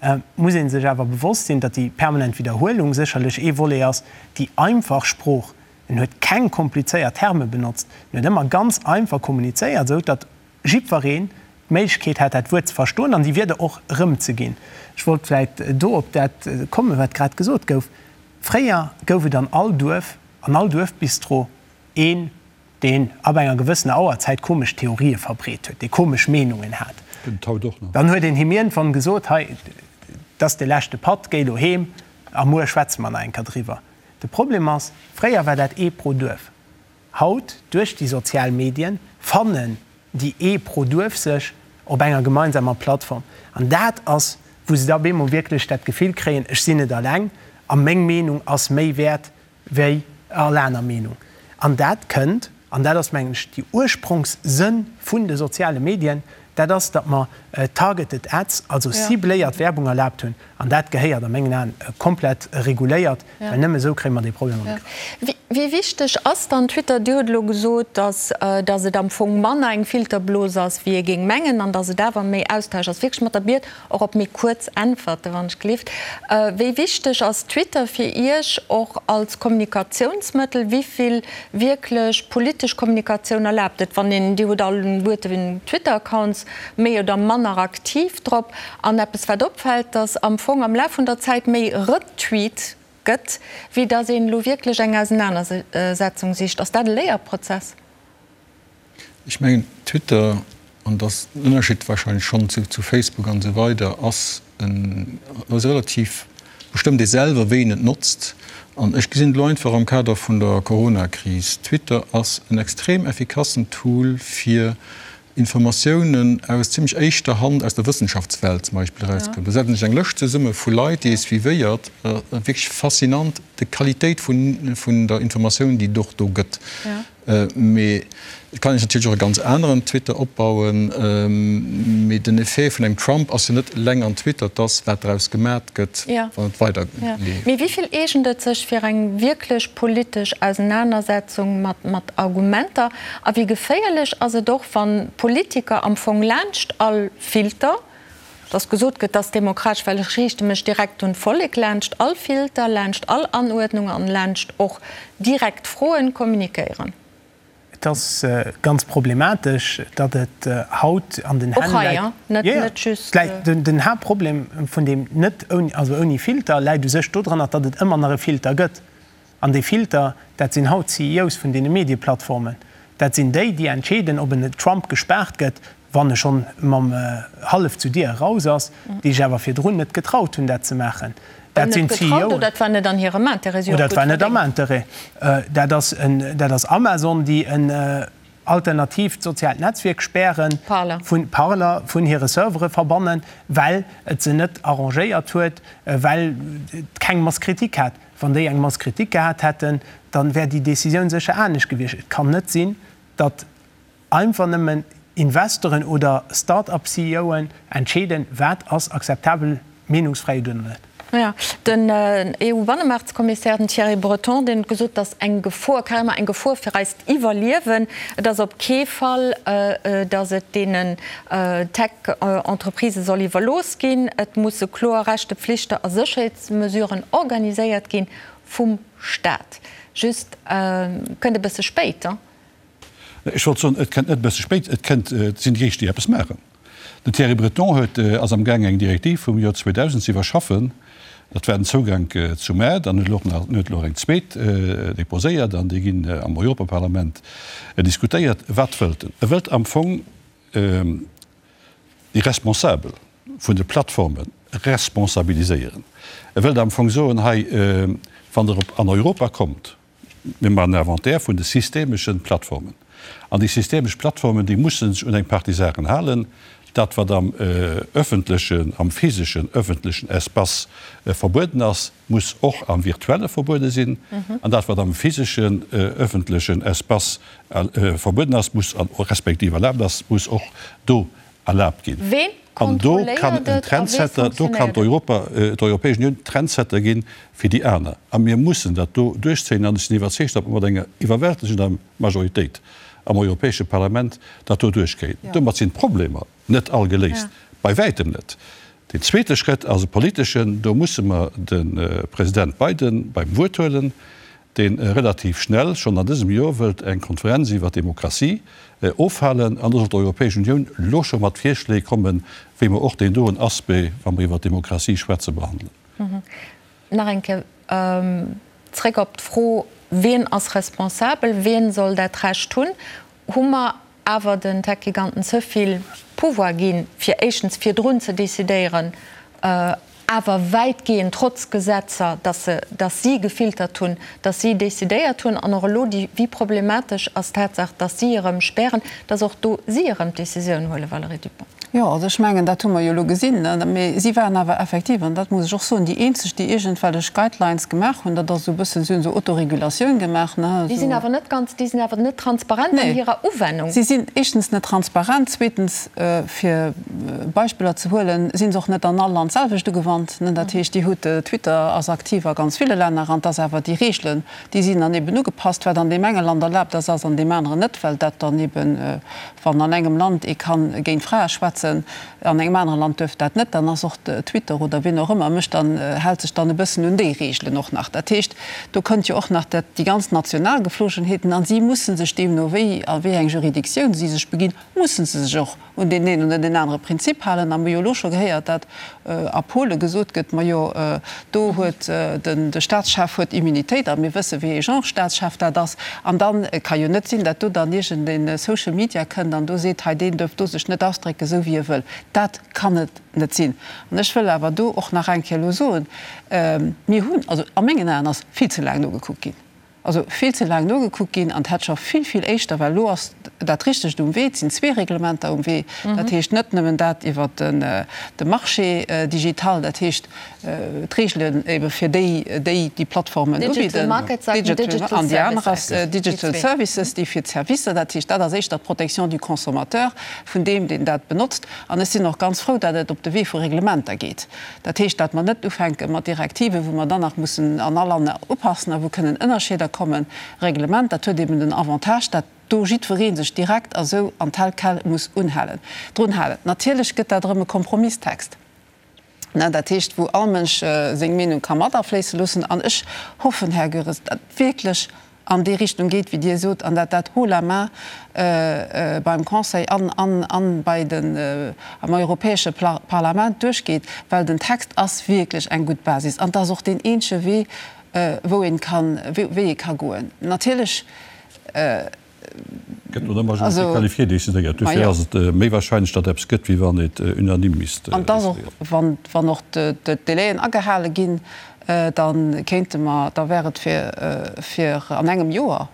Et muss ee sech awer bewosst sinn, datt déi permanent Widderhuelung sécherlech ee Volet ass, déi einfach Sprooch En huet keng komplizéiert Terme benotzt, en huet ëmmer ganz einfach kommunizéiert, esou datt jiddwereen d'Méiglechkeet hat, dat Wuert ze verstoen an déi Wierder och erëmzeginn. Ech wollt vläicht do op dat kommen, wat grad gesot gouf. Fréier gouf et an all Duerf, an all Duerfbistro een, deen ab enger gewëssener Auerzäit komesch Theorië verbreet huet, dee komesch Meenungen hat. Gëtt et haut och nach. Dann huet een him iergendwann gesot, Hei, dat ass de leschte Patt, géi elo heem a muer schwätze mer nach eng Kéier driwwer. De Problem ass, fréier war dat ee pro Duerf. Haut, duerch déi sozial Medien, fannen déi ee pro Duerf sech op enger gemeinsamer Plattform. An dat ass, wou se da op eemol wierklech dat Gefill kréien, ech sinn net alleng a meng Meenung ass méi wäert wéi all aner Meenung. An dat kënnt, an dat ass, mengen ech, déi Urspronkssënn vun de soziale Medien, dat ass, datt mer targeted ads, also cibléiert Werbung erlaabt hunn. An dat gehéiert a mengen Aen komplett reguléiert, well nëmme esou kréie mer dee Problem an de Grëff. Wéi wichteg ass dann Twitter? Dir hutt elo gesot, datt datt et am Fong manner eng Filterblos ass, wéi ee géing mengen, an datt et awer méi Austausch ass. Wierklech mat der Biet och op méi kuerz Äntwerte wann ech gelift. Wéi wichteg ass Twitter fir Iech och als Kommunikatiounsmëttel? Wéi vill wierklech politesch Kommunikatioun erlaabt et, wann een, Dir hutt alleguerten Twitter-Accounts. soss méi oder manner aktiv drop. An eppes wat opfält, datt am Fong am Laf vun der Zäit méi retweet gëtt, wéi datt een elo wierklech eng Ausenanersetzung sicht. Ass dat e Léierprozess? Ech mengen, Twitter, an dat ass den Ënnerscheed wahrscheinlech schonn zu Facebook an esou weider, ass en, ass relativ, bestëmmt ee selwer, wéi een et notzt. An ech gesinn et elo einfach am Kader vun der Coronakris, Twitter ass en extrem effikassen Tool, fir Informatiounen aus zimmlech éischter Hand aus der Wëssenschaftswelt zum Beispill erauskënnt. Do setzt een sech eng Lëscht zesumme vu Leit, déi ee suivéiert. Wierklech faszinant, d'Qualitéit vun der Informatioun, déi et och do gëtt. Mee et kann een sech natierlech och e ganz aneren Twitter opbauen. Mee den Effet vun engem Trump ass jo net eleng an Twitter, et ass, wat draus gemat gëtt, wann et weider leeft. Mee wéi vill eegent et sech fir eng wierklech politesch Ausenanersetzung mat Argumenter? A wéi geféierlech ass et och, wann Politiker am Fong laanscht all Filter, dass gesot gëtt, dass demokratesch, well ech riichte mech direkt un d'Vollek, laanscht all Filter, laanscht all Anuerdnung an laanscht och direkt Froen kommunikéieren? Et ass ganz problematesch, datt et haut an den Hänn läit. Och hei, net just. Den Haaptproblem vun deem net ouni, also ouni Filter, läit u sech dodranner, datt et ëmmer nach e Filter gëtt. An dee Filter, dat sinn haut d'CEOs vun deene Medieplattformen. Dat sinn déi, déi entscheeden, ob en Trump gespaart gëtt, wann e schonn mam hallef zu Dier eraus ass, déi sech awer virdrun net getraut hunn, dat ze maachen. Dat sinn d'CEOen. Oder dat war net an hirem Interêt. Oder dat war net am Interêt. Dat ass en, dat ass Amazon, déi en alternatiivt soziaalt Netzwierk spären, vun Parler vun hire Servere verbannen, well et se net arrangéiert huet, well et keng Mass Kritik hat. Wann déi eng Mass Kritik gehat hätten, dann wär déi Décisioun sécher anescht gewiescht. Et kann net sinn, datt einfach nëmmen Investoren oder Start-up-CEOen entscheeden, wat ass akzeptabel Meenungsfräiheet oder net. Jo, den EU-Bannemaartskommissär, den Thierry Breton, deen huet gesot, datt eng Gefor, carrément eng Gefor fir eist Iwwerliewen, et ass op kee Fall, datt et deenen Tech-Entreprisë soll iwwerlooss ginn. Et musse kloer Rechte, Pflichte a Sécherheetsmesuren organiséiert ginn vum Staat. Just, kënnt e bësse spéit, hein? Ech wollt soen, et kënnt net e bësse spéit, et kënnt, et sinn déi éischt, déi eppes maachen. Den Thierry Breton huet, ass amgaang eng Direktiv vum Joer 2000 ze iwwerschaffen, dat war den Zougank zum Maart, an huet elo och nach, huet elo och eng zweet déposéiert an déi ginn am Europaparlament diskutéiert. Wat wëllt en? E wëllt am Fong déi Responsabel vun de Plattforme responsabiliséieren. E wëllt am Fong soen, hei, wann Der op an Europa kommt, Mir maachen en Inventaire vun de systemeschen Plattformen. An déi systemesch Plattformen, déi musse sech un eng Partie Saachen halen. Dat, wat am öffentlechen, am physeschen öffentlechen Espace verbueden ass, muss och am virtuelle verbuede sinn. An dat, wat am physeschen öffentlechen Espace verbueden ass, muss, respektiv erlaabt ass, muss och do erlaabt ginn. Ween An do kann kontrolléiert en et a wéi Trendsetter, do kann funktionéiert et? d'Europa, d'Europäesch Unioun Trendsetter ginn fir déi aner. A mir mussen dat do duerchzéien. An ech sinn iwwerzeegt, datt mer mat enger iwwerwältegender Majoritéit am Europäesche Parlament dat do duerchkréien. Domat sinn d'Problemer net all geléist, bei wäitem net. Deen zweete Schrëtt ass e politeschen. Do musse mer de President Biden beim Wuert huelen. dee relativ schnell, schonn an dësem Joer, wëllt eng Konferenz iwwer d'Demokratie ofhalen, an do soll d'Europäesch Unioun elo scho mat Virschléi kommen, wéi mer och deen doen Aspect, wa mer iwwer d'Demokratie schwätzen, behandelen. Nach eng Kéier zréck op d'Fro, Wien ass responsabel? Wien soll dat Recht hunn? Hu mer awer den Tech-Giganten ze vill Pouvoir ginn, fir éischtens virdrun ze decidéieren, awer wäitgehend trotz Gesetzer, dass se, dass si gefiltert hunn, dass si decidéiert hunn, an och elo déi, wéi problematesch ass d'Tatsaach, dass si erëm spären, dass och do si erëm d'Decisioun huelen, Valérie Dupong? Jo, also ech mengen, dat hu mer jo elo gesinn. Mee si waren awer effektiv, an dat muss ech och soen, déi eenzeg, déi iergendwellech Guidelines gemaach hunn. Dat ass esou e bëssen, si hunn esou Autoregulatioun gemaach, ne, Déi sinn esou. awer net ganz, déi sinn awer net transparent an Nee, hirer Uwennung. si sinn éischtens net transparent, zweetens, fir Beispiller ze huelen, si se och net an all Land d'selwecht ugewannt, ne. Dat heescht, Dir hutt, Twitter ass aktiv a ganz ville Länner, an et ass awer déi Reegelen, déi sinn dann eben ugepasst. Wat an deem enge Land erlaabt ass, ass an deem aneren net, well dat dann eben, wann an engem Land ee kann géint Frae schwätzen. schwätzen, an engem anere Land duerf dat net, dann ass och Twitter oder wien och ëmmer mécht dann, hält sech dann e bëssen un déi Reegelen och nach. Dat heescht, do kënnt jo och nach dat, déi ganz national Geflogenheeten an si musse sech deemno wéi a wéi eng Juridictioun si sech beginn, musse se sech och un deen een oder deen anere Prinzip halen. A mir hu jo elo scho gehéiert, dat a Pole gesot gëtt, majo do huet den de Staatschef huet Immunitéit a mir wësse wéi ee Genre Staatschef dat ass. An da ka jo net sinn, dat do dann iergend ee Social Media kënnt an do seet, hei deen duerf do sech net ausdrécken, esou wéi e wëll. Dat kann et net sinn. An ech wëll awer do och nach eng Kéier elo soen, mir hunn, also a mengen Aen ass vill ze laang nogekuckt ginn. Also vill ze laang nogekuckt ginn an et hätt scho vill, vill éischter, well elo ass dat Richtegt um Wee, et sinn zwee Reglementer um Wee, dat heescht net nëmmen dat iwwert de Marché digital, dat heescht d'Regelen ebe fir déi, déi déi Plattformen ubidden, an déi aner ass Digital Services, déi fir d'Servicer, dat heescht dat ass éischter d'Protection du consommateur, vun deem, deen dat benotzt. An ech sinn och ganz frou, datt et op de Wee vu Reglementer geet. Dat heescht, datt mer net ufänke mat Direktiven, wou mer dann nach mussen an all Land upassen a wou kënnen Ënnerscheeder kommen. Reglement, dat huet eben den Avantage, datt do jiddweree sech direkt a sou an tel quel muss unhalen, drun halen. Natierlech gëtt dat erëm e Kompromisstext, dat heescht, wou all Mënsch seng Meenung ka mat afléisse loossen. An ech hoffen, Här Goeres, datt wierklech an déi Richtung geet, wéi Dir sot, an dat dat haut la main beim Conseil an an bei den am Europäesche Parlament duerchgeet, well den Text ass wierklech eng gutt Basis an et ass och deen eenzege Wee, wou een kann, wéi ee ka goen. Natierlech. Gëtt no der Majorité qualifiée decidéiert. Dofir ass et méi wahrscheinlech, datt eppes gëtt, wéi wann et unanime misst decidéiert. An et ass och, wann, wann och d'Délaien agehale ginn, da kéinte mer, da wär et fir, fir an engem Joer.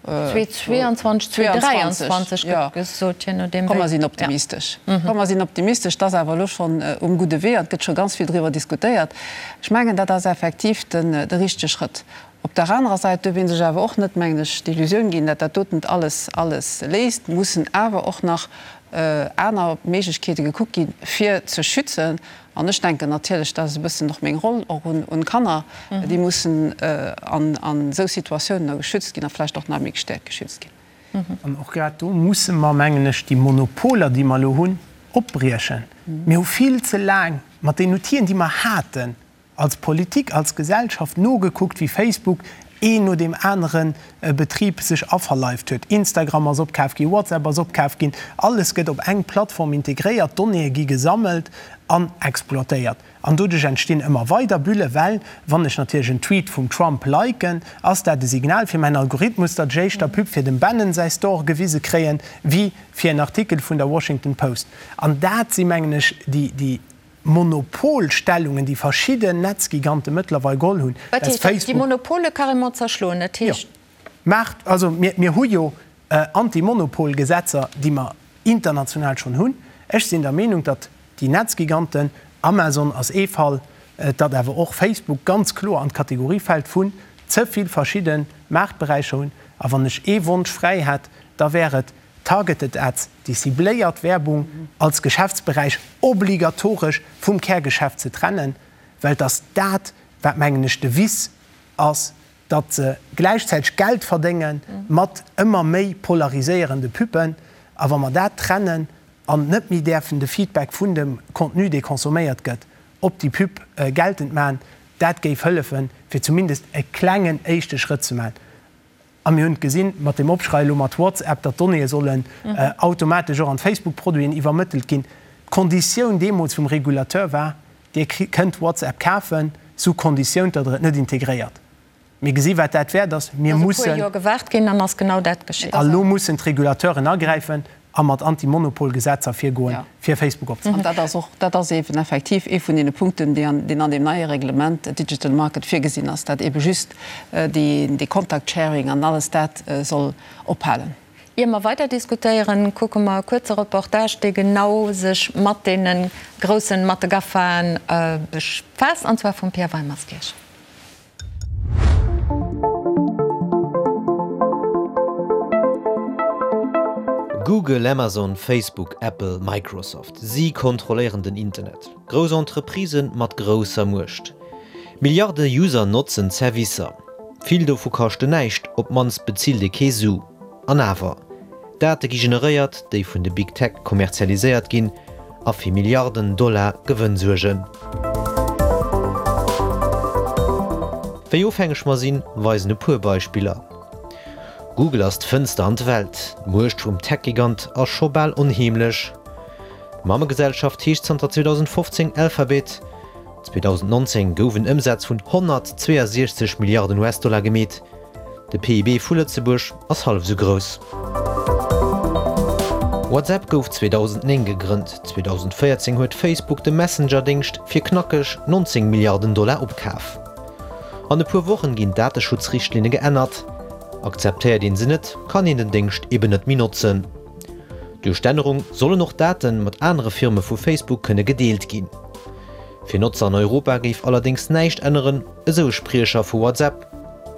2022, 2023 gëtt gesot, je nodeem wéi. Komm, mer sinn optimistesch. Komm, mer sinn optimistesch. Et ass awer elo schonn um gudde Wee an et gëtt scho ganz vill driwwer diskutéiert. Ech mengen, dat ass effektiv den, de richtege Schrëtt. Op der anerer Säit duerf ee sech awer och net, mengen ech, d'Illusioun ginn, dat dat doten alles, alles léist. Mussen awer och nach aner Méiglechkeete gekuckt ginn, fir ze schützen. An ech denken natierlech, dat ass e bëssen och meng Roll, och un d'Kanner, déi mussen an esou Situatiounen da geschützt ginn a vläicht och nach méi gestäerkt geschützt ginn. An och grad do musse mer, mengen ech, déi Monopoler, déi mer elo hunn, opbriechen. Mir hu vill ze laang mat den Outile, déi mer haten, als Politik, als Gesellschaft nogekuckt, wéi Facebook een no deem anere Betrib sech averleift huet. Instagram ass opkaf ginn, WhatsApp ass opkaf ginn, alles gëtt op eng Plattform integréiert, d'Donnéeë gi gesammelt an exploitéiert. An doduerch entstinn ëmmer weider Bullen, well wann ech natierlech en Tweet vum Trump liken, ass dat e Signal fir mäin Algorithmus, datt ech éischter Pub fir dem Bannon säi Store gewise kréien, wéi fir en Artikel vun der Washington Post. An dat si mengen ech déi Monopolstellungen, déi verschidden Netzgigante mëttlerweil geholl hunn, Wat heescht dat? Déi Monopole carrément zerschloen? Dat heescht. Jo, Maart, also mir, mir hu jo Antimonopolgesetzer, déi mer international schonn hunn. Ech sinn der Meenung, datt déi Netzgiganten, Amazon ass ee Fall, datt awer och Facebook ganz kloer an d'Kategorie fält vun ze vill verschidde Maartberäicher hunn. A wann ech ee Wonsch fräi hätt, da wär et, Targeted Ads, déi cibléiert Werbung, als Geschäftsberäich obligatoresch vum Kärgeschäft ze trennen, well et ass dat, wat, mengen ech, de Vice ass, datt se gläichzäiteg Geld verdénge mat ëmmer méi polariséierende Pubben. A wa mer dat trennen an net méi däerfen de Feedback vun dem Contenu, dee consomméiert gëtt, op déi Pub geltend maachen, dat géif hëllefen, fir zumindest e klengen éischte Schrëtt ze maachen. A mir hunn et gesinn, mat deem Opschrei elo mat WhatsApp, datt d'Donnéeë sollen automatesch och an d'Facebook-Produiten iwwermëttelt ginn. D'Konditioun deemools vum Regulateur war, Dir kënnt WhatsApp kafen, sous Konditioun, datt Der et net integréiert. Mir gesi wat dat wäert ass. Mir mussen. Et ass e puer Joer gewaart ginn, dann ass genau dat geschitt. A lo mussen d'Regulateuren agräifen a mat Anti-Monopol-Gesetzer virgoen, fir Facebook opzehalen. An dat ass och, dat ass eeben effektiv ee vun deene Punkten, déi an, deen an deem neie Reglement Digital Market virgesinn ass, dat eebe just déi, dee Contact Sharing an alles dat soll ophalen. Ier mer weider diskutéieren, kucke mer e kuerze Reportage, dee genau sech mat deene groussen, mat de GAFAen befaasst, an zwar vum Pierre Weimerskirch. Google, Amazon, Facebook, Apple, Microsoft, si kontrolléieren den Internet. Grouss Entreprisë mat grousser Muecht. Milliarde User notzen d'Servicer. Vill dovu kaschten näischt, op d'mannst bezilt ee kee Su. An awer, Date gi generéiert, déi vun de Big Tech kommerzialiséiert ginn. A fir Milliarden Dollar Gewënn suergen. Wéi ofhängeg mer sinn, weisen e puer Beispiller. Google ass d'Fënster an d'Welt. D'Muecht vum Tech-Gigant ass scho bal onheemlech. D'Mammegesellschaft heescht zanter 2015 Alphabet. 2019 gouf en Ëmsaz vun 162 Milliarden US-Dollar gemeet. De PIB vu Lëtzebuerg ass hallef esou grouss. WhatsApp gouf 2009 gegrënnt. 2014 huet Facebook de Messenger-Déngscht fir knackeg 19 Milliarden Dollar opkaf. An e puer Wochen ginn d'Dateschutzrichtlinne geännert. Akzeptéiert een se net, kann een den Déngscht eben net méi notzen. Duerch d'Ännerung sollen och Date mat anere Firme vu Facebook kënne gedeelt ginn. Fir Notzer an Europa géif allerdéngs näischt änneren, esou e Spriecher vu WhatsApp,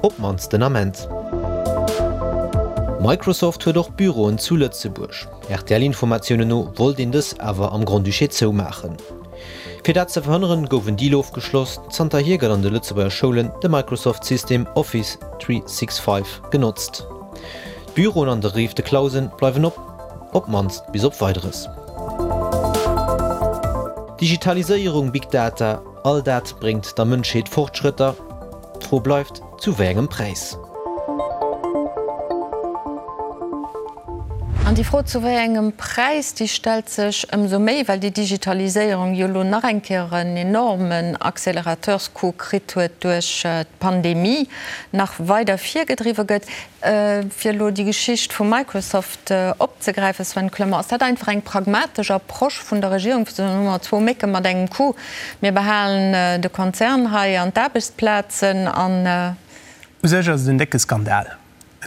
op d'mannst den Ament. Microsoft huet och Büroen zu Lëtzebuerg. RTL-Informatiounen no wollt een dës awer am Grand-Duché zoumaachen. Fir dat ze verhënneren, gouf en Deal ofgeschloss. Zanterhier gëtt an de Lëtzebuerger Schoulen de Microsoft-System Office 365 genotzt. D'Büroen an der Rive de Clausen bleiwen op, op d'mannst bis op Weideres. Digitaliséierung, Big Data, all dat bréngt der Mënschheet Fortschrëtter. D'Fro bleift, zu wéi engem Präis? An déi Fro zu wéi engem Präis, déi stellt sech ëmsou méi, well déi Digitaliséierung jo elo nach eng Kéier en enormen Accélérateurscoup kritt huet duerch d'Pandemie, nach weider virgedriwwe gëtt. Fir elo déi Geschicht vu Microsoft opzegräifen, Sven Clement, ass dat einfach eng pragmatesch Approche vun der Regierung, fir ze soen, hu mer zwou Mécke mat engem Coup, mir behalen de Konzern hei an d'Aarbechtsplazen an. U sech ass et en décke Skandal,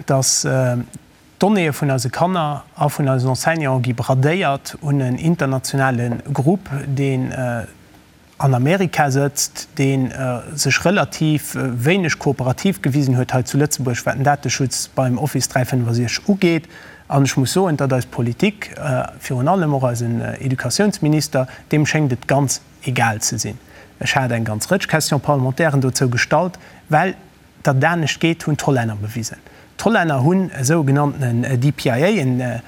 dass d'Donnéeë vun eise Kanner a vun eisen Enseignanten gi bradéiert un en internationale Grupp, deen an Amerika sëtzt, dee sech relativ wéineg kooperativ gewisen huet hei zu Lëtzebuerg, wat den Dateschutz beim Office 365 ugeet. An ech muss soen, datt eis Politik, virun allem och eisen Educatiounsminister, deem schéngt et ganz egal ze sinn. Ech hat eng ganz Rëtsch Question-parlementairen dozou gestallt, well datt et anescht geet, hunn d'Hollänner bewisen. D'Hollänner hunn e sougenanntenen DPIA, en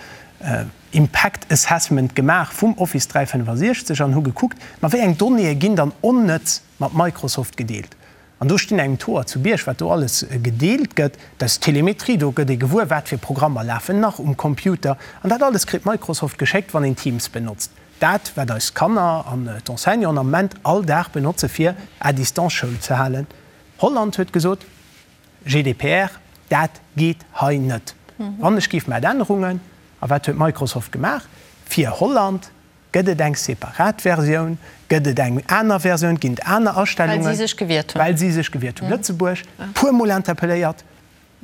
Impact Assessment gemaach vum Office 365 an hu gekuckt, ma wéi eng Donnéeë ginn dann onnëtz mat Microsoft gedeelt. An do stinn engem d'Hoer zu Bierg, wat do alles gedeelt gëtt. Dat ass Telemetrie, do gëtt ee gewuer, wat fir Programmer lafen nach um Computer. An dat alles kritt Microsoft geschéckt, wann een Teams benotzt. Dat, wat eis Kanner an d'Enseignanten am Moment all Dag benotze fir à distance Schoul ze halen. Holland huet gesot, GDPR, dat geet hei net. Wann ech géif mat Ännerungen, a wat huet Microsoft gemaach? Fir Holland gëtt et eng separat Versioun, gëtt et eng aner Versioun, ginn et aner Astellungen. Well si sech gewiert hunn. Well si sech gewiert hunn. Lëtzebuerg, puer Mol interpelléiert,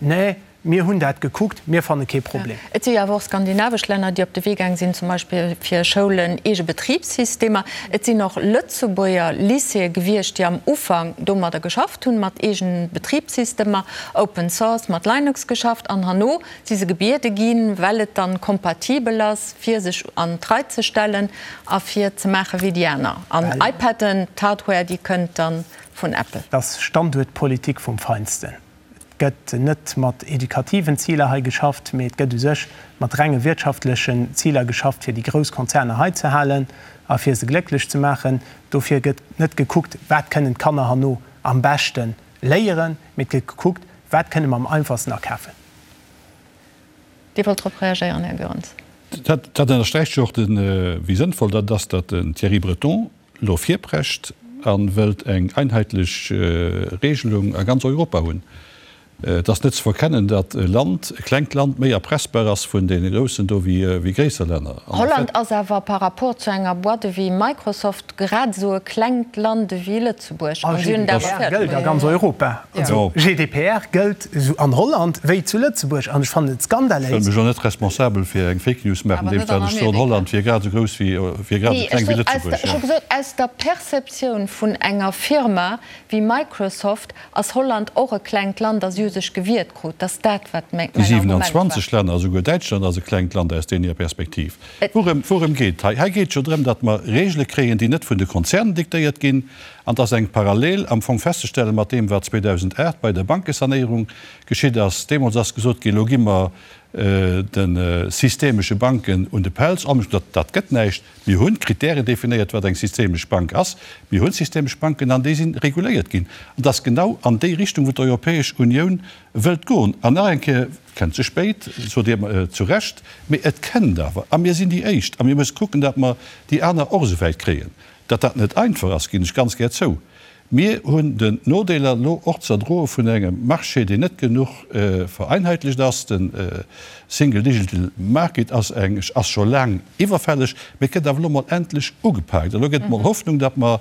Nee, mir hunn dat gekuckt, mir fanne kee Problem. Et si jo awer och skandinavesch Länner, déi op de Wee gaang sinn, zum Beispill fir Schoulen eege Betribssystemer. Et sinn och Lëtzebuerger Lycéeë gewiescht, déi am Ufank domadder geschafft hunn, mat eegene Betribssystemer, Open Source, mat Linux geschafft an herno si se gebiede ginn, well et dann kompatibel ass, fir sech an d'Rei ze stellen a fir ze maache wéi déi aner. An iPaden, d'Hardware, déi kënnt dann vun Apple. Dat ass Standuertpolitik vum Feinsten. Et gëtt net mat edukativen Ziler hei geschafft, mee et gëtt u sech mat renge wirtschaftlechen Ziler geschafft, fir déi grouss Konzerner hei ze halen a fir se glécklech ze maachen. Dofir gëtt net gekuckt, wat kënnen d'Kanner herno am beschte léieren, mee et gëtt gekuckt, wat kënne mer am einfachsten akafen. Dir wollt drop reagéieren, Här Goerens. Dat ënnersträicht jo och, wéi sënnvoll dat ass, datt den Thierry Breton elo virprescht a wëllt eng einheetlech Regelung a ganz Europa hunn. Et ass net ze verkennen, datt e Land, e klengt Land, méi erpressbar ass vun deene Groussen do wéi gréisser Länner. Holland ass awer par rapport zu enger Boîte ewéi Microsoft grad esou e klengt Land ewéi Lëtzebuerg. A GDPR gëllt a ganz Europa. Also GDPR gëllt esou an Holland wéi zu Lëtzebuerg. An ech fannen et skandaléis. Ech wëll mech elo net responsabel fir eng Fake News maachen, andeems dat ech soen, Holland wier grad esou grouss wéi, wier grad esou kleng wéi Lëtzebuerg. Ech hu gesot, aus der Perceptioun vun enger Firma wéi Microsoft ass Holland och e klengt Land a si hu sech gewiert krut. Dat ass dat, wat mäin Déi Argument war. 27 Länner, esouguer Däitschland ass e klengt Land aus deene Perspektiv. Wourëm, wourëm geet et hei? Hei geet et jo drëm, datt mer Regele kréien, déi net vun de Konzernen diktéiert ginn. An et ass eng Parallel am Fong festzestellen mat deem, wat 2008 bei der Bankesanéierung geschitt ass. Deemools ass gesot ginn, elo gi mer. De systemesche Banken un de Pelz. An dat gëtt näischt. Mir hunn Kritären definéiert, wat eng systemesch Bank ass. Mir hunn systemesch Banken an déi si reguléiert ginn. An dat ass genau an déi Richtung, wou d'Europäesch Unioun wëllt goen. An nach eng Kéier, et kënnt ze spéit, sot Dir zu Recht, mee et kënnt awer. A mir sinn déi Éischt. A mir musse kucken, datt mer déi aner och esou wäit kréien. Datt dat net einfach ass, ginn ech ganz gär zou. Mir hunn den Nodeeler elo och ze erdroe vun engem Marché, deen net genuch vereinheitlecht ass. De Single Digital Market ass eng, ass scho laang iwwerfälleg, mee et gëtt awer elo mol endlech ugepaakt. Elo gëtt et mol Hoffnung, datt mer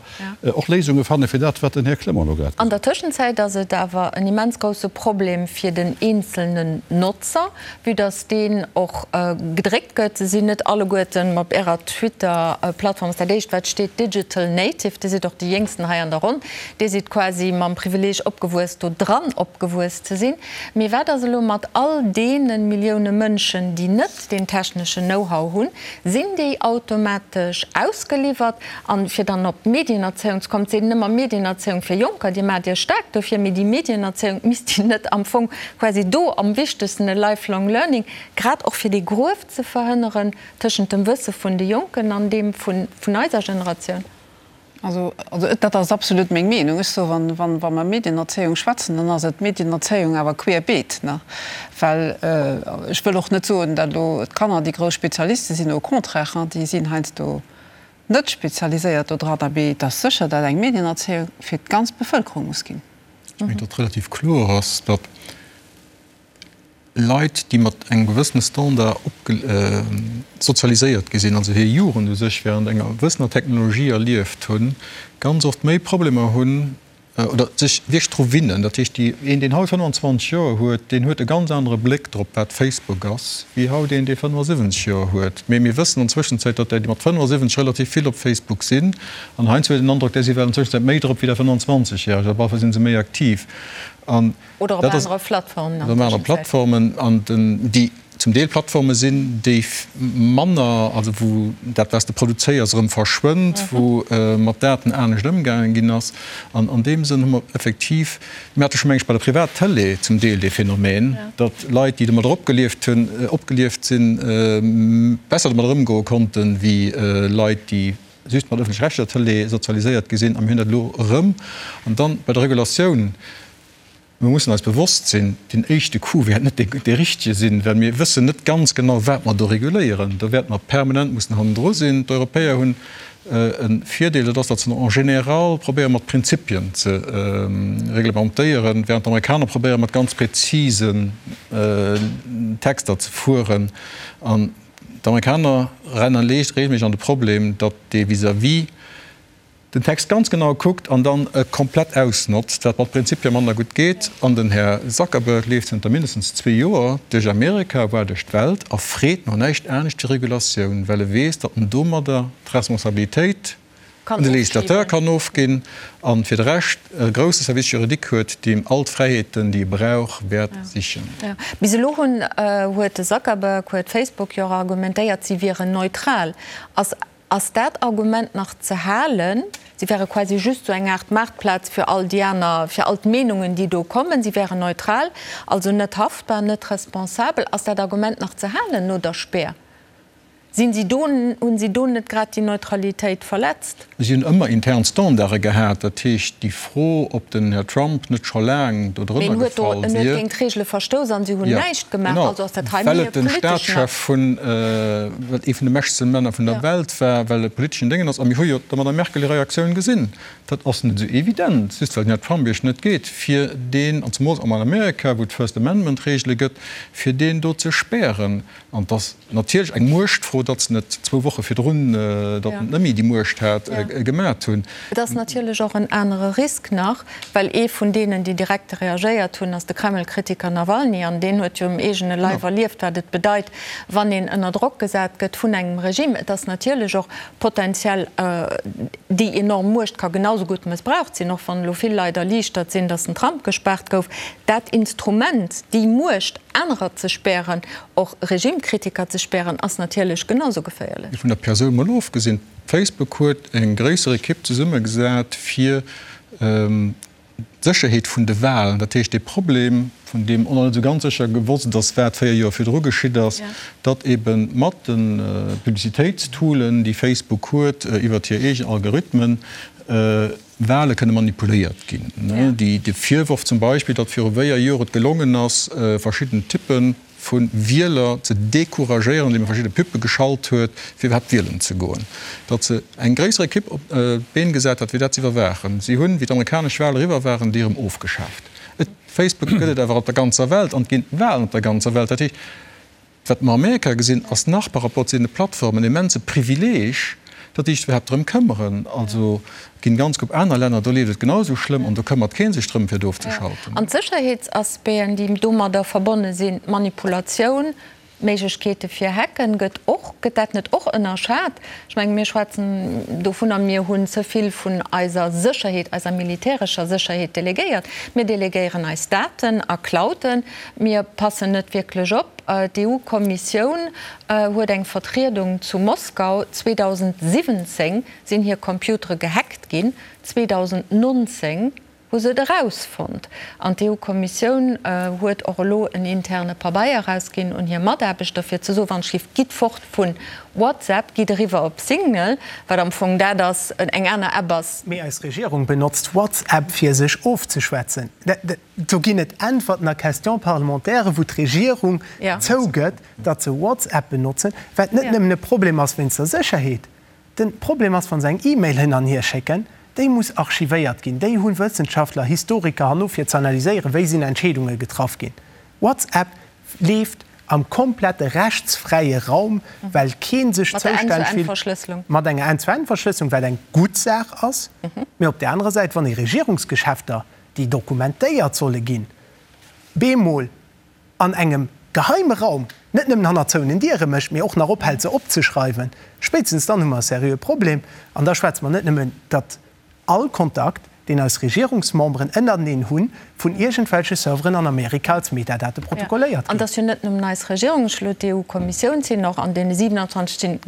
och Léisunge fanne fir dat, wat den Här Clement elo grad An gesot der Tëschenzäit ass et awer en immens grousse Problem fir den eenzelnen Notzer, Vue dass deen och gedréckt gëtt, se sinn net alleguerten op Ärer Twitter-Plattform, ass dat éischt wat steet Digital Native, Dir sidd och déi Jéngsten hei an der Ronn, Dir sidd quasi mam Privileeg opgewuess do dran opgewuess ze sinn. Mee wat ass elo mat all deene Millioune Mënschen, déi net deen techneschen Know-how hunn? Sinn déi automatesch ausgeliwwert? An fir dann op d'Medienerzéiung ze kommen, et seet een ëmmer Medienerzéiung fir Jonker, Dir maacht Iech staark dofir, mee déi Medienerzéiung, misst déi net am Fong quasi do am wichtegsten e lifelong learning, grad och fir dee Gruef ze verhënneren tëschent dem Wësse vun de Jonken an deem vun eiser Generatioun? Also, dat ass absolut meng Meenung. Ech soe, wa mer Medienerzéiung schwätzen, dann ass et Medienerzéiung awer querbeet, ne? Well ech wëll och net soen, datt elo d'Kanner déi grouss Spezialiste sinn, au contraire, déi sinn heiansdo net spezialiséiert do dran, mee et ass sécher, datt eng Medienerzéiung fir d'ganz Bevëlkerung muss ginn. Ech mengen, datt relativ kloer ass, datt Leit, déi mat engem gewëssene Standard sozialiséiert gi sinn, also hir Jugend u sech während enger gewëssener Technologie erlieft hunn, ganz oft méi Problemer hunn, oder sech wierklech dru winnen. Dat heescht, déi, een, deen haut 25 Joer huet, deen huet e ganz anere Bléck drop, wat Facebook ass, wéi haut een, dee 75 Joer huet. Mee mir wëssen an Zwëschenzäit, datt där, déi mat 75 relativ vill op Facebook sinn, an heiansdo huet een den Androck, där si well an Zwëschenzäit méi drop wéi der 25 Järeg, op alle Fall si se méi aktiv. An Oder op dat ass, anere Plattformen an oder op anere Zwëschenzäit. Plattformen, an den, déi zum Deel Plattforme sinn, déi manner, also wou dat, wat s de produzéiers, erëm verschwënnt, wou mat Daten anescht ëmgaange ginn ass. An an deem Sënn hu mer effektiv, mir hate scho meng ech bei der Privat-Tëlee zum Deel dee Phänomen, datt Leit, déi domadder opgelieft hunn, opgelieft sinn, besser domadder ëmgoe konnten, wéi Leit, déi just mat ëffentlech-rechtlecher Tëlee sozialiséiert gi sinn. A mir hunn dat elo erëm. An dann bei der Regulatioun. Mir mussen eis bewosst sinn, deen éischte Coup wäert net dee richtege sinn, well mir wëssen net ganz genau, wat mer do reguléieren. Do wäerte mer permanent mussen hannendru sinn. D'Europäer hunn e Virdeel, dat ass, datt se en général probéieren, mat Prinzipien ze reglementéieren, während d'Amerikaner probéieren, mat ganz präzisen Texter ze fueren. An d'Amerikaner rennen regelméisseg an de Problem, datt dee vis-à-vis den Text ganz genau kuckt an dann e komplett ausnotzt, wat mat Prinzipie manner gutt geet. An den Här Zuckerberg leeft zënter mindestens zwee Joer duerch Amerika, voire duerch d'Welt a freet no näischt anescht wéi Regulatioun, well e weess, datt en domadder d'Responsabilitéit un de Législateur kann ofginn a fir de Rescht e grousse Service juridique huet, deem all d'Fräiheeten, déi e brauch, wäert sichen. Bis elo hunn, huet de Zuckerberg, huet Facebook jo och argumentéiert, si wieren neutral. Ass Ass dat Argument nach ze halen? Si wäre quasi just esou eng Aart Maartplaz fir all déi aner, fir all d'Meenungen, déi do kommen. Si wären neutral, also net haftbar, net responsabel. Ass dat Argument nach ze halen no der Spär? Sinn si do, hunn si do net grad déi Neutralitéit verletzt? Si hunn ëmmer intern Standarde gehat. Dat heescht, déi Fro, ob den Här Trump net scho laang do Mee drënner en huet do, gefall en huet wier. géint d'Reegele verstouss an si hunn Jo, näischt gemaach. genau, Also ass dat hei well méi e et de politeschen Akt. Staatschef vun, well et ee vun de mächtegste Männer vun der Ja. Welt war, well e politeschen Déngen ass. A mir hu jo der Madame Merkel hir Reaktioun gesinn. Dat ass net esou evident, just well den Här Trump Iech net geet, fir deen, an zemools am Amerika, wou et First Amendment-Reegele gëtt, fir deen do ze spären. An et ass natierlech eng Muechtfro, datt se net zwou Woche virdrun, datt en net méi déi Muecht hat, gemat hunn. Et ass natierlech och en anere Risk nach, well ee vun deenen, déi direkt reagéiert hunn, ass de Kreml-Kritiker Nawalny. An deen huet jo um eegene Leif erlieft, wat et bedeit, wann een ënner Drock gesat gëtt vun engem Regime. Et ass natierlech och potenziell, déi enorm Muecht ka genau esou gutt mëssbraucht sinn, och wann elo vill Leit erliichtert sinn, datt den Trump gespaart gouf. Dat Instrument, déi Muecht, anerer ze spären, och Regimekritiker ze spären, ass natierlech genau sou geféierlech. Vun der Persoun mol ofgesinn, Facebook huet eng gréisser Ekipp zesummegesat fir d'Sécherheet vun de Walen. Dat heescht, dee Problem. vun deem och nach net esou ganz sécher gewosst ass, wat 4 Joer virdru geschitt ass, datt ebe mat de Publicitéitstoolen, déi Facebook huet, iwwert hir eegen Algorithmen, Wale kënne manipuléiert ginn. De Virworf zum Beispill, datt viru 4 Joer et gelongen ass, verschidden Typpe vu Wieler ze decouragéieren, andeem e verschidde Pubbe geschalt huet, fir iwwerhaapt wielen ze goen. Datt se eng gréisser Ekipp op d'Been gesat hat, fir dat ze iwwerwaachen. Si hunn, wéi d'amerikanesch Wale eriwwer waren, déi erëm ofgeschaaft. Et, Facebook gëtt et awer op der ganzer Welt an et ginn Walen op der ganzer Welt. Dat heescht, wat mer Amerika gesinn, ass nach par rapport zu deene Plattformen en immense Privileeg, datt déi sech iwwerhaapt drëm këmmeren. Also, Et ginn ganz gutt aner Länner, do leeft et genau esou schlëmm an do këmmert kee sech drëm, fir et ofzeschalten. An d'Sécherheetsaspecten, déi domadder verbonne sinn, d'Manipulatioun, d'Méiglechkeete fir Hacken, gëtt och, gëtt dat net och ënnerschat? Ech mengen, mir schwätzen dovunner, mir hunn ze vill vun eiser Sécherheet, eiser militärescher Sécherheet delegéiert. Mir delegéieren eis Daten a Clouden. Mir passen net wierklech op. D'EU-Kommissioun huet eng Vertriedung zu Moskau 2017 sinn hir Computere gehackt ginn. 2019 hu se et erausfonnt an d'EU-Kommissioun huet och elo en interne Pabeier erausginn un hir Mataarbechter, fir ze soen, wann d'Schiff, gitt fort vu WhatsApp, gitt eriwwer op Signal, wat am Fong dat ass, eng aner App ass. Mee eis Regierung benotzt WhatsApp fir sech ofzeschwätzen. Do ginn et Äntwerten a Question-parlementairen, wou d'Regierung zougëtt, datt se WhatsApp benotzen, wat net nëmmen e Problem ass wéinst der Sécherheet, Den Problem ass, wann se eng E-Mail hin an hier schécken, déi muss archivéiert ginn. Déi hunn Wëssenschaftler, Historiker herno fir ze analyséieren, wéi sinn Entscheedunge getraff ginn. WhatsApp leeft am komplette rechtsfräie Raum, well kee sech zoustänneg fillt mat enger End-zu-End-Verschlësselung, wat eng gutt Saach ass. Mee op där anerer Säit, wann ee Regierungsgeschäfter, déi dokumentéiert solle ginn, bemol an engem geheime Raum, net nëmmen hannert zouenen Diere mécht, mee och nach ophält se opzeschreiwen, spéitstens dann hu mer e seriöe Problem. An da schwätze mer net nëmmen, datt all Kontakt, deen eis Regierungsmemberen ënnerteneen hunn, vun iergendwelche Serveren an Amerika als Metadate protokolléiert An ginn. et ass jo net nëmmen eis Regierung, ech elo d'EU-Kommissioun sinn och an deene 27 sinn,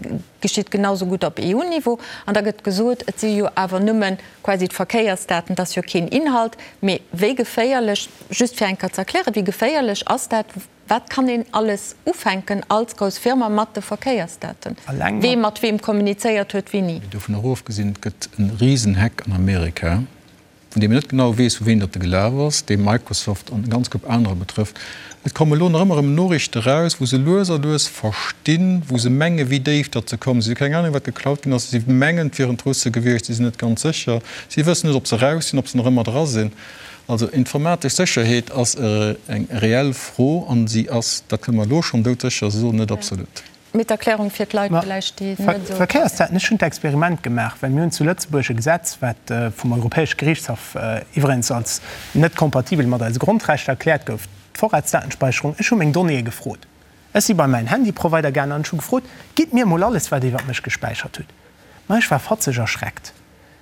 geschitt genau sou gutt op EU-Niveau. An da gëtt gesot, et si jo awer nëmme quasi d'Verkéiersdaten, et ass jo keen Inhalt. Mee wéi geféierlech, just fir eng Kéier ze erklären, wéi geféierlech ass dat? Wat kann een alles ufänken als grouss Firma mat de Verkéiersdaten? Wee mat weem kommunizéiert huet, wéini? Mee dovun och ofgesinn, et gëtt e Risenhack an Amerika, vun deem een net genau weess, vu ween datt e gelaf ass, dee Microsoft an e ganz Koup anerer betrëfft. Et komme elo nach ëmmer erëm Noriichte eraus, wou se lues a lues verstinn, wou se mengen, wéi déif datt se kommen. Si hu keng Anung, wat geklaut ginn ass. Si mengen, et wieren d'Russe gewiescht, si sinn net ganz sécher. Si wëssen net, ob se eraus sinn, ob se nach ëmmer dra sinn. Also informatesch Sécherheet ass eng reell Fro an si ass, dat kënne mer elo schonn doudsécher soen, net absolut. Mee d'Erklärung fir d'Leit villäicht, déi net esou. Verkéiersdaten, Ech hunn d'Experiment gemaach, well mir hunn zu Lëtzebuerg e Gesetz, wat vum Europäesche Gerichtshaff iwwerens als net kompatibel mat eise Grondrechter erkläert gouf, d'Vorratsdatenspeicherung. Ech hu meng Donnéeë gefrot. Ech si bei mäin Handyprovider gaangen an ech hu gefrot, Gitt mir emol alles, wat Dir iwwert mech gespäichert hutt. Ma ech war fatzeg erschreckt.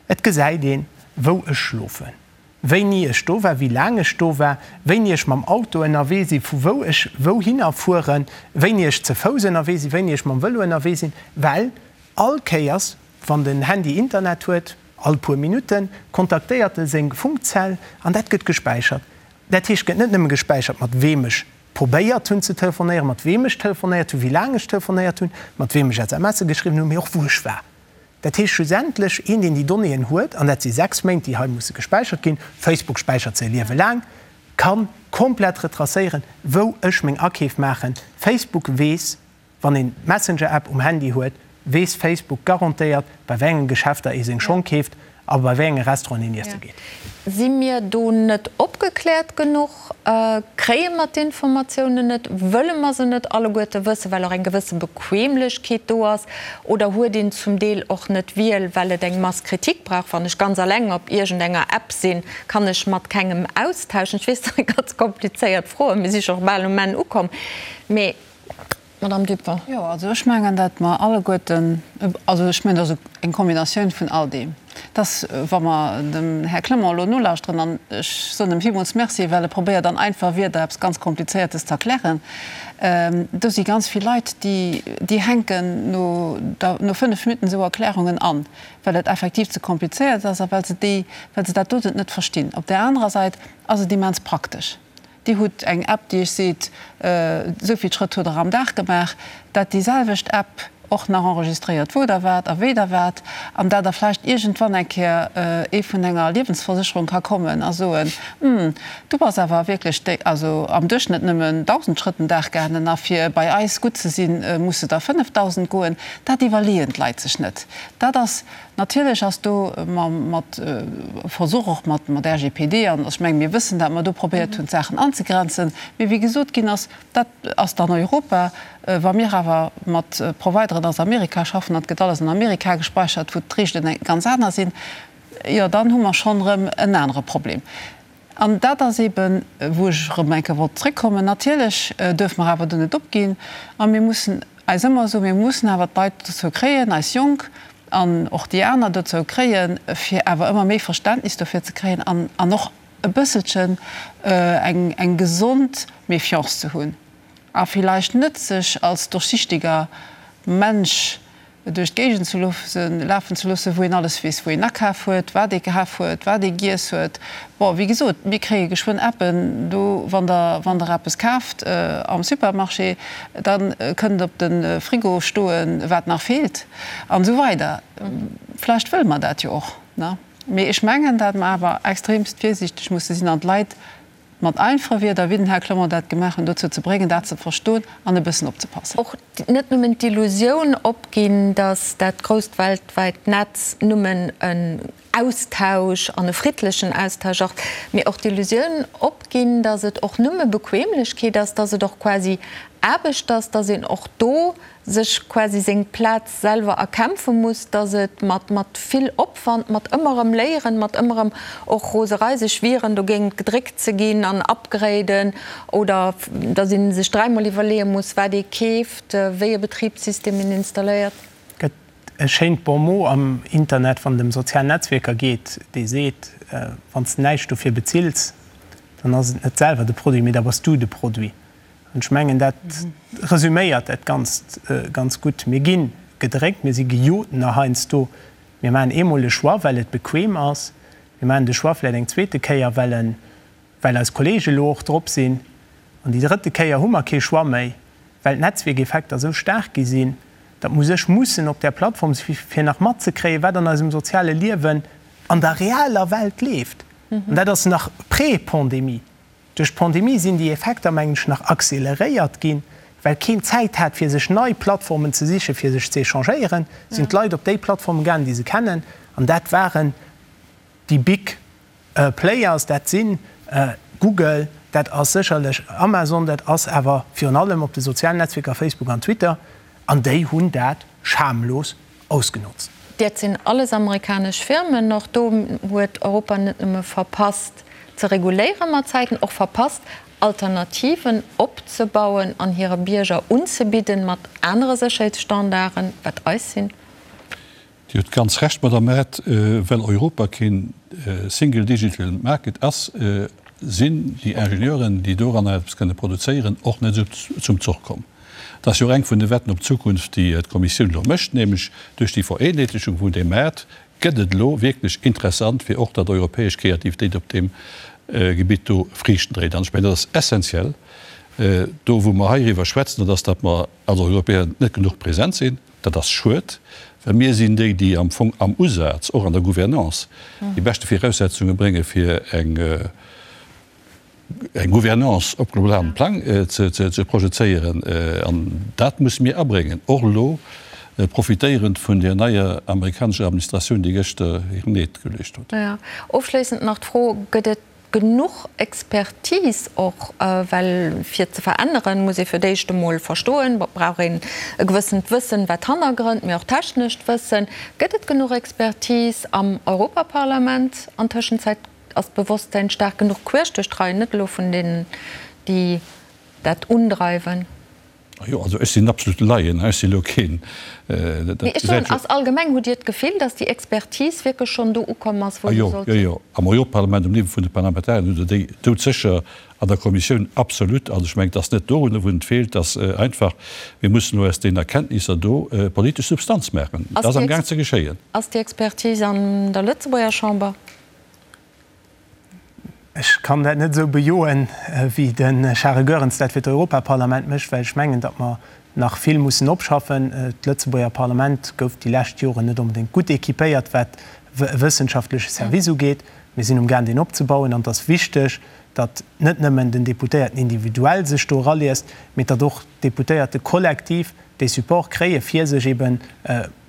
Et gesäit een, wou ech schlofen. Wéini ech do war, wéi laang ech do war, wéini ech mam Auto ënnerwee sinn, vu wou ech wouhinner fueren, wéini ech ze Fouss ënnerwee sinn, wéini ech mam Vëlo ënnerwee sinn, well all Kéiers, wann den Handy Internet huet, all puer Minutten, kontaktéiert e seng Funkzell an dat gëtt gespäichert. Dat heescht, et gëtt net nëmme gespäichert, mat weem ech probéiert hunn ze telefonéieren, mat weem ech telefonéiert hunn, wéi laang ech telefonéiert hunn, mat weem ech SMSe geschriwwen hunn, mee och wou ech war. Dat heescht schlussendlech, een, deen déi Donnéeën huet, an dat si 6 Méint, déi hei musse gespäichert ginn, Facebook späichert se e Liewe laang, ka komplett retracéieren, wou ech meng Akeef maachen. Facebook weess, wann een d'Messenger-App um Handy huet, weess Facebook garantéiert, bei wéi enge Geschäfter ee seng Schong keeft a bei wéi enge Restauranten een iesse geet. Si mir do net opgekläert genuch? Kréie mer d'Informatiounen net? Wëlle mer se net alleguerte wëssen, well och eng gewësse Bequemlechkeet do ass? Oder huet een zum Deel och net d'Wiel, well et eng Masse critique brauch? Wann ech ganz alleng op iergendenger App sinn, kann ech mat kengem austauschen. Ech weess, dat si ganz komplizéiert Froen, mir si scho bal um Enn ukomm. Mee Madame Dupont. Jo, also ech mengen, datt mer alleguerten, also ech mengen, dat ass eng Kombinatioun vun all deem, dass, wa mer dem Här Clement elo nolauschteren, an ech soen em villmools Merci, well e probéiert an einfach Wierder eppes ganz Komplizéiertes ze erklären, do si ganz vill Leit, déi, déi hänken no der, no fënnf Minutten esou Erklärungen an, well et effektiv ze komplizéiert ass a well se déi, well se dat doten net verstinn. Op där anerer Säit ass et immens praktesch. Dir hutt eng App, déi Iech seet, esou vill Schrëtt hutt Der am Dag gemaach, dat déi selwecht App och nach enregistréiert, wou Der waart a wéi Der waart, an dat da vläicht iergendwann eng Kéier ee vun enger Liewensversécherung ka kommen a soen, Hm, du bass awer wierklech déi, also am Duerchschnëtt nëmmen 1.000 Schrëtt den Dag gaangen, a fir bei eis gutt ze sinn, muss de der 5.000 goen. Dat iwwerleeën d'Leit sech net. Dat ass Natierlech ass do mat Versuch, och mat RGPD, an ech menge mir wëssen, dat mer do probéiert hunn, d'Saachen anzegrenzen, mee wéi gesot ginn ass, dat ass dann Europa. Wa mir awer mat Provideren aus Amerika schaffen an et gëtt alles an Amerika gespeichert, wou d'Reegelen ganz aner sinn, jo dann hu mer schonn erëm en anere Problem. An dat ass eeben, wou ech erëm eng Kéier wollt zréckkommen, natierlech duerfe mer awer do net opginn a mir mussen eis ëmmer soen, mir mussen awer d'Leit dozou kréien, eis Jonk an och déi aner dozou kréien, fir awer ëmmer méi Verständnis dofir ze kréien an an och e bësselchen eng eng gesond Méfiance ze hunn a villäicht net sech als durchsichtiger Mensch duerch d'Géigend ze loossen, lafen ze loossen, wou een alles weess, wou een akaf huet, wat ee kaf huet, wat ee giess huet. Bon, wéi gesot, mir kréie geschwënn Appen do, wann Der, wann Der eppes kaaft am Supermarché, da kënnt op de Frigo stoen, wat nach feelt an esou weider. Vläicht wëlle mer dat jo och, ne? Mee ech mengen, dat mer awer extremst virsiichteg musse sinn an d'Leit mat einfache Wierder, wéi den Här Clement dat gemaach huet, dozou ze bréngen, dat ze verstoen an e bëssen opzepassen. Och net nëmmen d'Illusioun opginn, datt dat grousst weltwäit Netz nëmmen en Austausch an e friddlechen Austausch ass, mee och d'Illusioun opginn, datt et och nëmme Bequemlechkeet ass, datt et och quasi Aarbecht ass, datt een och do sech quasi seng Plaz selwer erkämpfe muss, dass et mat mat vill Opwand, mat ëmmer erëm Léieren, mat ëmmer erëm och Roserei, sech wieren dogéint gedréckt ze ginn an upgraden oder dass ee sech dräimol iwwerleeë muss, wat ee keeft, wéi e Betribssystem een installéiert. Et gëtt e schéint Bon mot am Internet, wann et ëm sozial Netzwierker geet, dee seet, Wann s de näischt dofir bezills, dann ass et net selwer de Produit, mee da bass du de Produit. An ech mengen, dat resüméiert dat Ganzt ganz gutt. Mir gi gedréckt, mir si gejot nach heiansdo. Mir maachen eemol e Choix, well et bequem ass. Mir maachen de Choix vläicht eng zweete Kéier, well en, well eis Kollege elo och drop sinn. An déi drëtte Kéier hu mer kee Choix méi, well d'Netzwierkeffekter esou staark gi sinn, datt mer u sech mussen op där Plattform si fir nach matzekréien, wat an eisem soziale Liewen an der realer Welt leeft. An dat ass nach pré-Pandemie. Duerch d'Pandemie sinn déi Effekter, mengen ech, nach acceleréiert ginn, well keen Zäit hat, fir sech nei Plattformen ze sichen, fir sech ze échangéieren, sinn d'Leit op déi Plattformen gaangen, déi se kennen, an dat waren déi big players, dat si Google, dat ass sécherlech Amazon, dat ass awer virun allem op de sozialen Netzwierker Facebook an Twitter, an déi hunn dat schamlos ausgenotzt. Dat sinn alles amerikanesch Firmen. Och do huet Europa net nëmme verpasst ze reguléieren mat Zäiten, och verpasst Alternativen opzebauen an hire Bierger unzebidden mat anere Sécherheetsstandarden, wat eis sinn. Dir hutt ganz Recht, Madame Err, well Europa keen Single Digital Market ass, sinn déi Ingenieuren, déi doranner eppes kënne produzéieren, och net esou zum Zoch komm. Dat ass jo och eng vun de Wetten op d'Zukunft, déi d'Kommissioun elo mécht, nämlech duerch déi Vereenheetlechung vun deem Maart gëtt et elo wierklech interessant, fir och datt europäesch Kreativitéit op deem Gebitt do Friichten dréit. An ech mengen, dat ass essenziell do, wou mer heiriwwer schwätzen, dat ass, datt mer als Europäer net genuch present sinn. Dat ass schued, well mir sinn déi, déi am Fong am Usaz, och an der Gouvernance, déi beschte Viraussetzunge brénge fir eng eng Gouvernance op globalem Plang ze projezéieren. An dat musse mir abréngen, och elo profitéierend vun där neier amerikanescher Administratioun, déi gëschter hiren Eed geleescht huet. Ofschléissend nach d'Fro, Gëtt et genuch Expertise och? Well fir ze veränneren, muss ee fir d'éischt emol verstoen, brauch een e gewëssent Wëssen, wat d'Hannergrënn, mee och technescht Wëssen. Gëtt et genuch Expertise am Europaparlament an Tëschenzäit? Ass d'Bewosstsäin staark genuch queesch duerch d'Reien, net elo vun deenen, déi dat undreiwen? Jo, also ech sinn absolut Laien, ech si lo keen, dat Mee ech soen, ass allgemeng, hutt Dir d'Gefill, datt déi Expertise wierklech schonn do ukomm ass, wou se sollt sinn? Jo, jo, am Europaparlament, um Niveau vun de Parlamentarieren hutt Der déi doudsécher, an der Kommissioun absolut. Also ech mengen, et ass net dorunner, wou et feelt, et ass einfach, mir mussen elo aus deenen Erkenntnisser do politesch Substanz maachen. Dat ass amgaang ze geschéien. Ass déi Expertise an der Lëtzebuerger Chamber? Ech kann dat net esou bejoen, wéi de Charel Goerens dat fir d'Europaparlament mécht, well ech mengen, datt mer nach vill mussen opschaffen. D'Lëtzebuerger Parlament gouf déi lescht Joren net onbedéngt gutt équipéiert, wat e wëssenschaftleche Service ugeet. Mir sinn umgaang, deen opzebauen. An et ass wichteg, datt net nëmmen den Deputéierten individuell sech do eraliest, mee datt och d'Deputéierte kollektiv dee Support kréie fir sech eben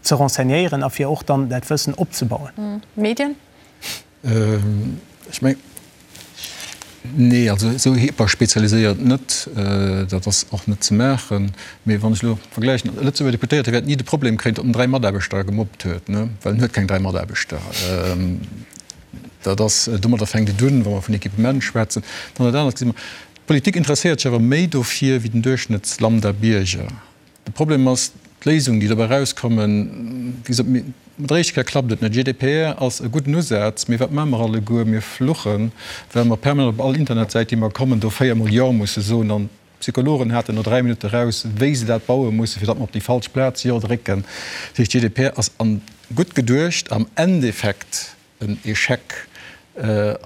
ze renseignéieren a fir och dann dat Wëssen opzebauen. Medien? Ech mengen, nee, also esou hyperspezialiséiert net, dat ass och net ze maachen. Mee wann ech elo vergläichen, e Lëtzebuerger Deputéierte wäert ni de Problem kréien, datt en 3 Mataarbechter gemobbt huet, ne, well en huet keng 3 Mataarbechter. Dat ass, domadder fänkt et un, wa mer vun Equipement schwätzen. Dann dat anert gesi mer, d'Politik interesséiert sech awer méi dofir wéi den Duerchschnëttslambda-Bierger. De Problem ass, d'Léisungen, déi dobäi erauskommen, wéi gesot, mat der éischter Kéier klappt et net. GDPR ass e gudden Usaz, mee wat maache mer alleguer? Mir fluchen, well mer permanent op all Internetsäit, déi mer kommen, do véiermol Jo musse soen. An d'Psychologen haten no 3 Minutte raus, wéi se dat baue mussen, fir datt mer op déi falsch Plaz Jo drécken. Dat heescht, GDPR ass an gutt geduecht, am Endeffekt en Echec.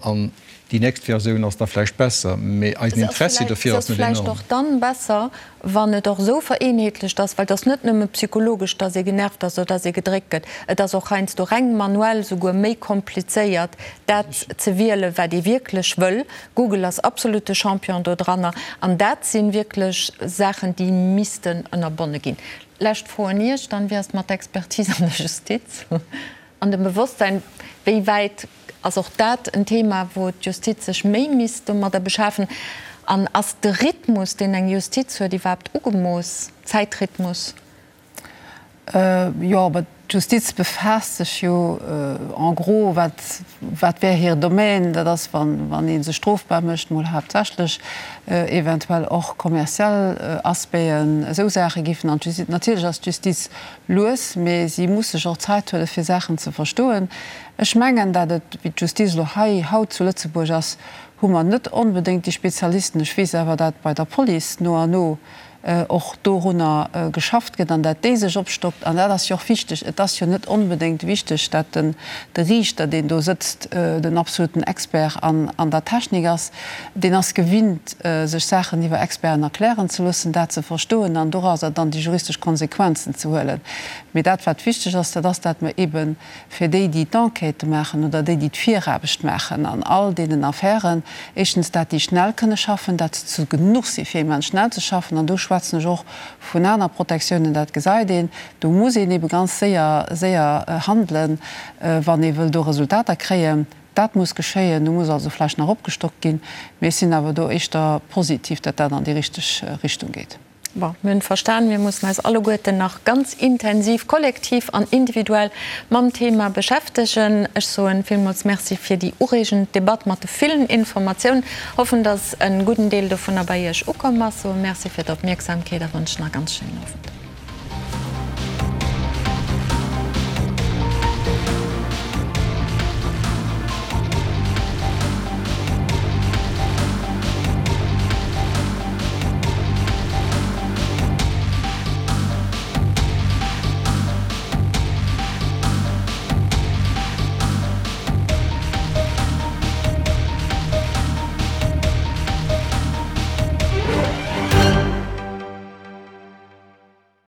An déi nächst Versioun ass da vläicht besser, mee eisen Interessi dofir ass net enorm. Se ass vläicht och dann besser, wann et och esou vereenheetlecht ass, well et ass net nëmme psychologesch, dass ee genervt ass oder dass ee gedréckt gëtt, et ass och heiansdo reng manuell souguer méi komplizéiert, dat ze wielen, wat ee wierklech wëll. Google ass absolut de Champion dodranner. An dat si wierklech Saachen, déi missten ënnerbonne ginn. Lescht Fro un Iech dann, Wéi ass et mat der Expertise an der Justiz? An dem Bewosstsein, wéi wäit ass och dat en Thema, wou d'Justiz sech méi misst domadder beschafen? An ass de Rhythmus, deen eng Justiz huet, iwwerhaapt ugemooss, Zäitrhythmus? Jo, aber d'Justiz befaasst sech jo en gros, wat, wat wär hir Domaine, dat ass, wann, wann ee sech strofbar mécht, mol haaptsächlech, eventuell och kommerziell Aspecten, esou Saache giffen an d'Justiz. Natierlech ass d'Justiz lues, mee si muss sech och Zäit huelen, fir Saachen ze verstoen. Ech mengen, dat et, wéi d'Justiz elo hei haut zu Lëtzebuerg ass, hu mer net onbedéngt déi Spezialisten. Ech weess awer, dat bei der Police no an no och dorunner geschafft gëtt an dat déi sech opstockt. An dat ass jo och wichteg. Et ass jo net onbedéngt wichteg, dat den de Riichter, deen do sëtzt, den absoluten Expert an an der Technik ass. Deen ass gewinnt, sech Saachen iwwer Experten erklären ze loossen, dat ze verstoen an dorauser dann déi juristesch Konsequenzen ze huelen. Mee dat, wat wichteg ass, dat ass, dat mer eebe fir déi, déi d'Enquêtë maachen oder déi, déi d'Viraarbecht maachen an all deenen Affären, éischtens, dat déi schnell kënne schaffen, dat se zu genuch si fir immens schnell ze schaffen, an do schwätzen ech och vun aner Protektiounen, dat gesäit een, do muss een eebe ganz séier, séier handelen, wann ee wëll do Resultater kréien. Dat muss geschéien, do muss also vläicht nach opgestockt ginn, mee ech sinn awer do éischter positiv, datt dat an déi richteg Richtung geet. Bon, mir hunn verstan, mir mussen eis alleguerten nach ganz intensiv, kollektiv an individuell mam Thema beschäftegen. Ech soen villmools Merci fir déi ureegend Debatt mat de villen Informatiounen. Hoffen, dass e gudden Deel dovunner bei Iech ukomm ass. Soe Merci fir d'Opmierksamkeet a wënschen e ganz schéinen Owend.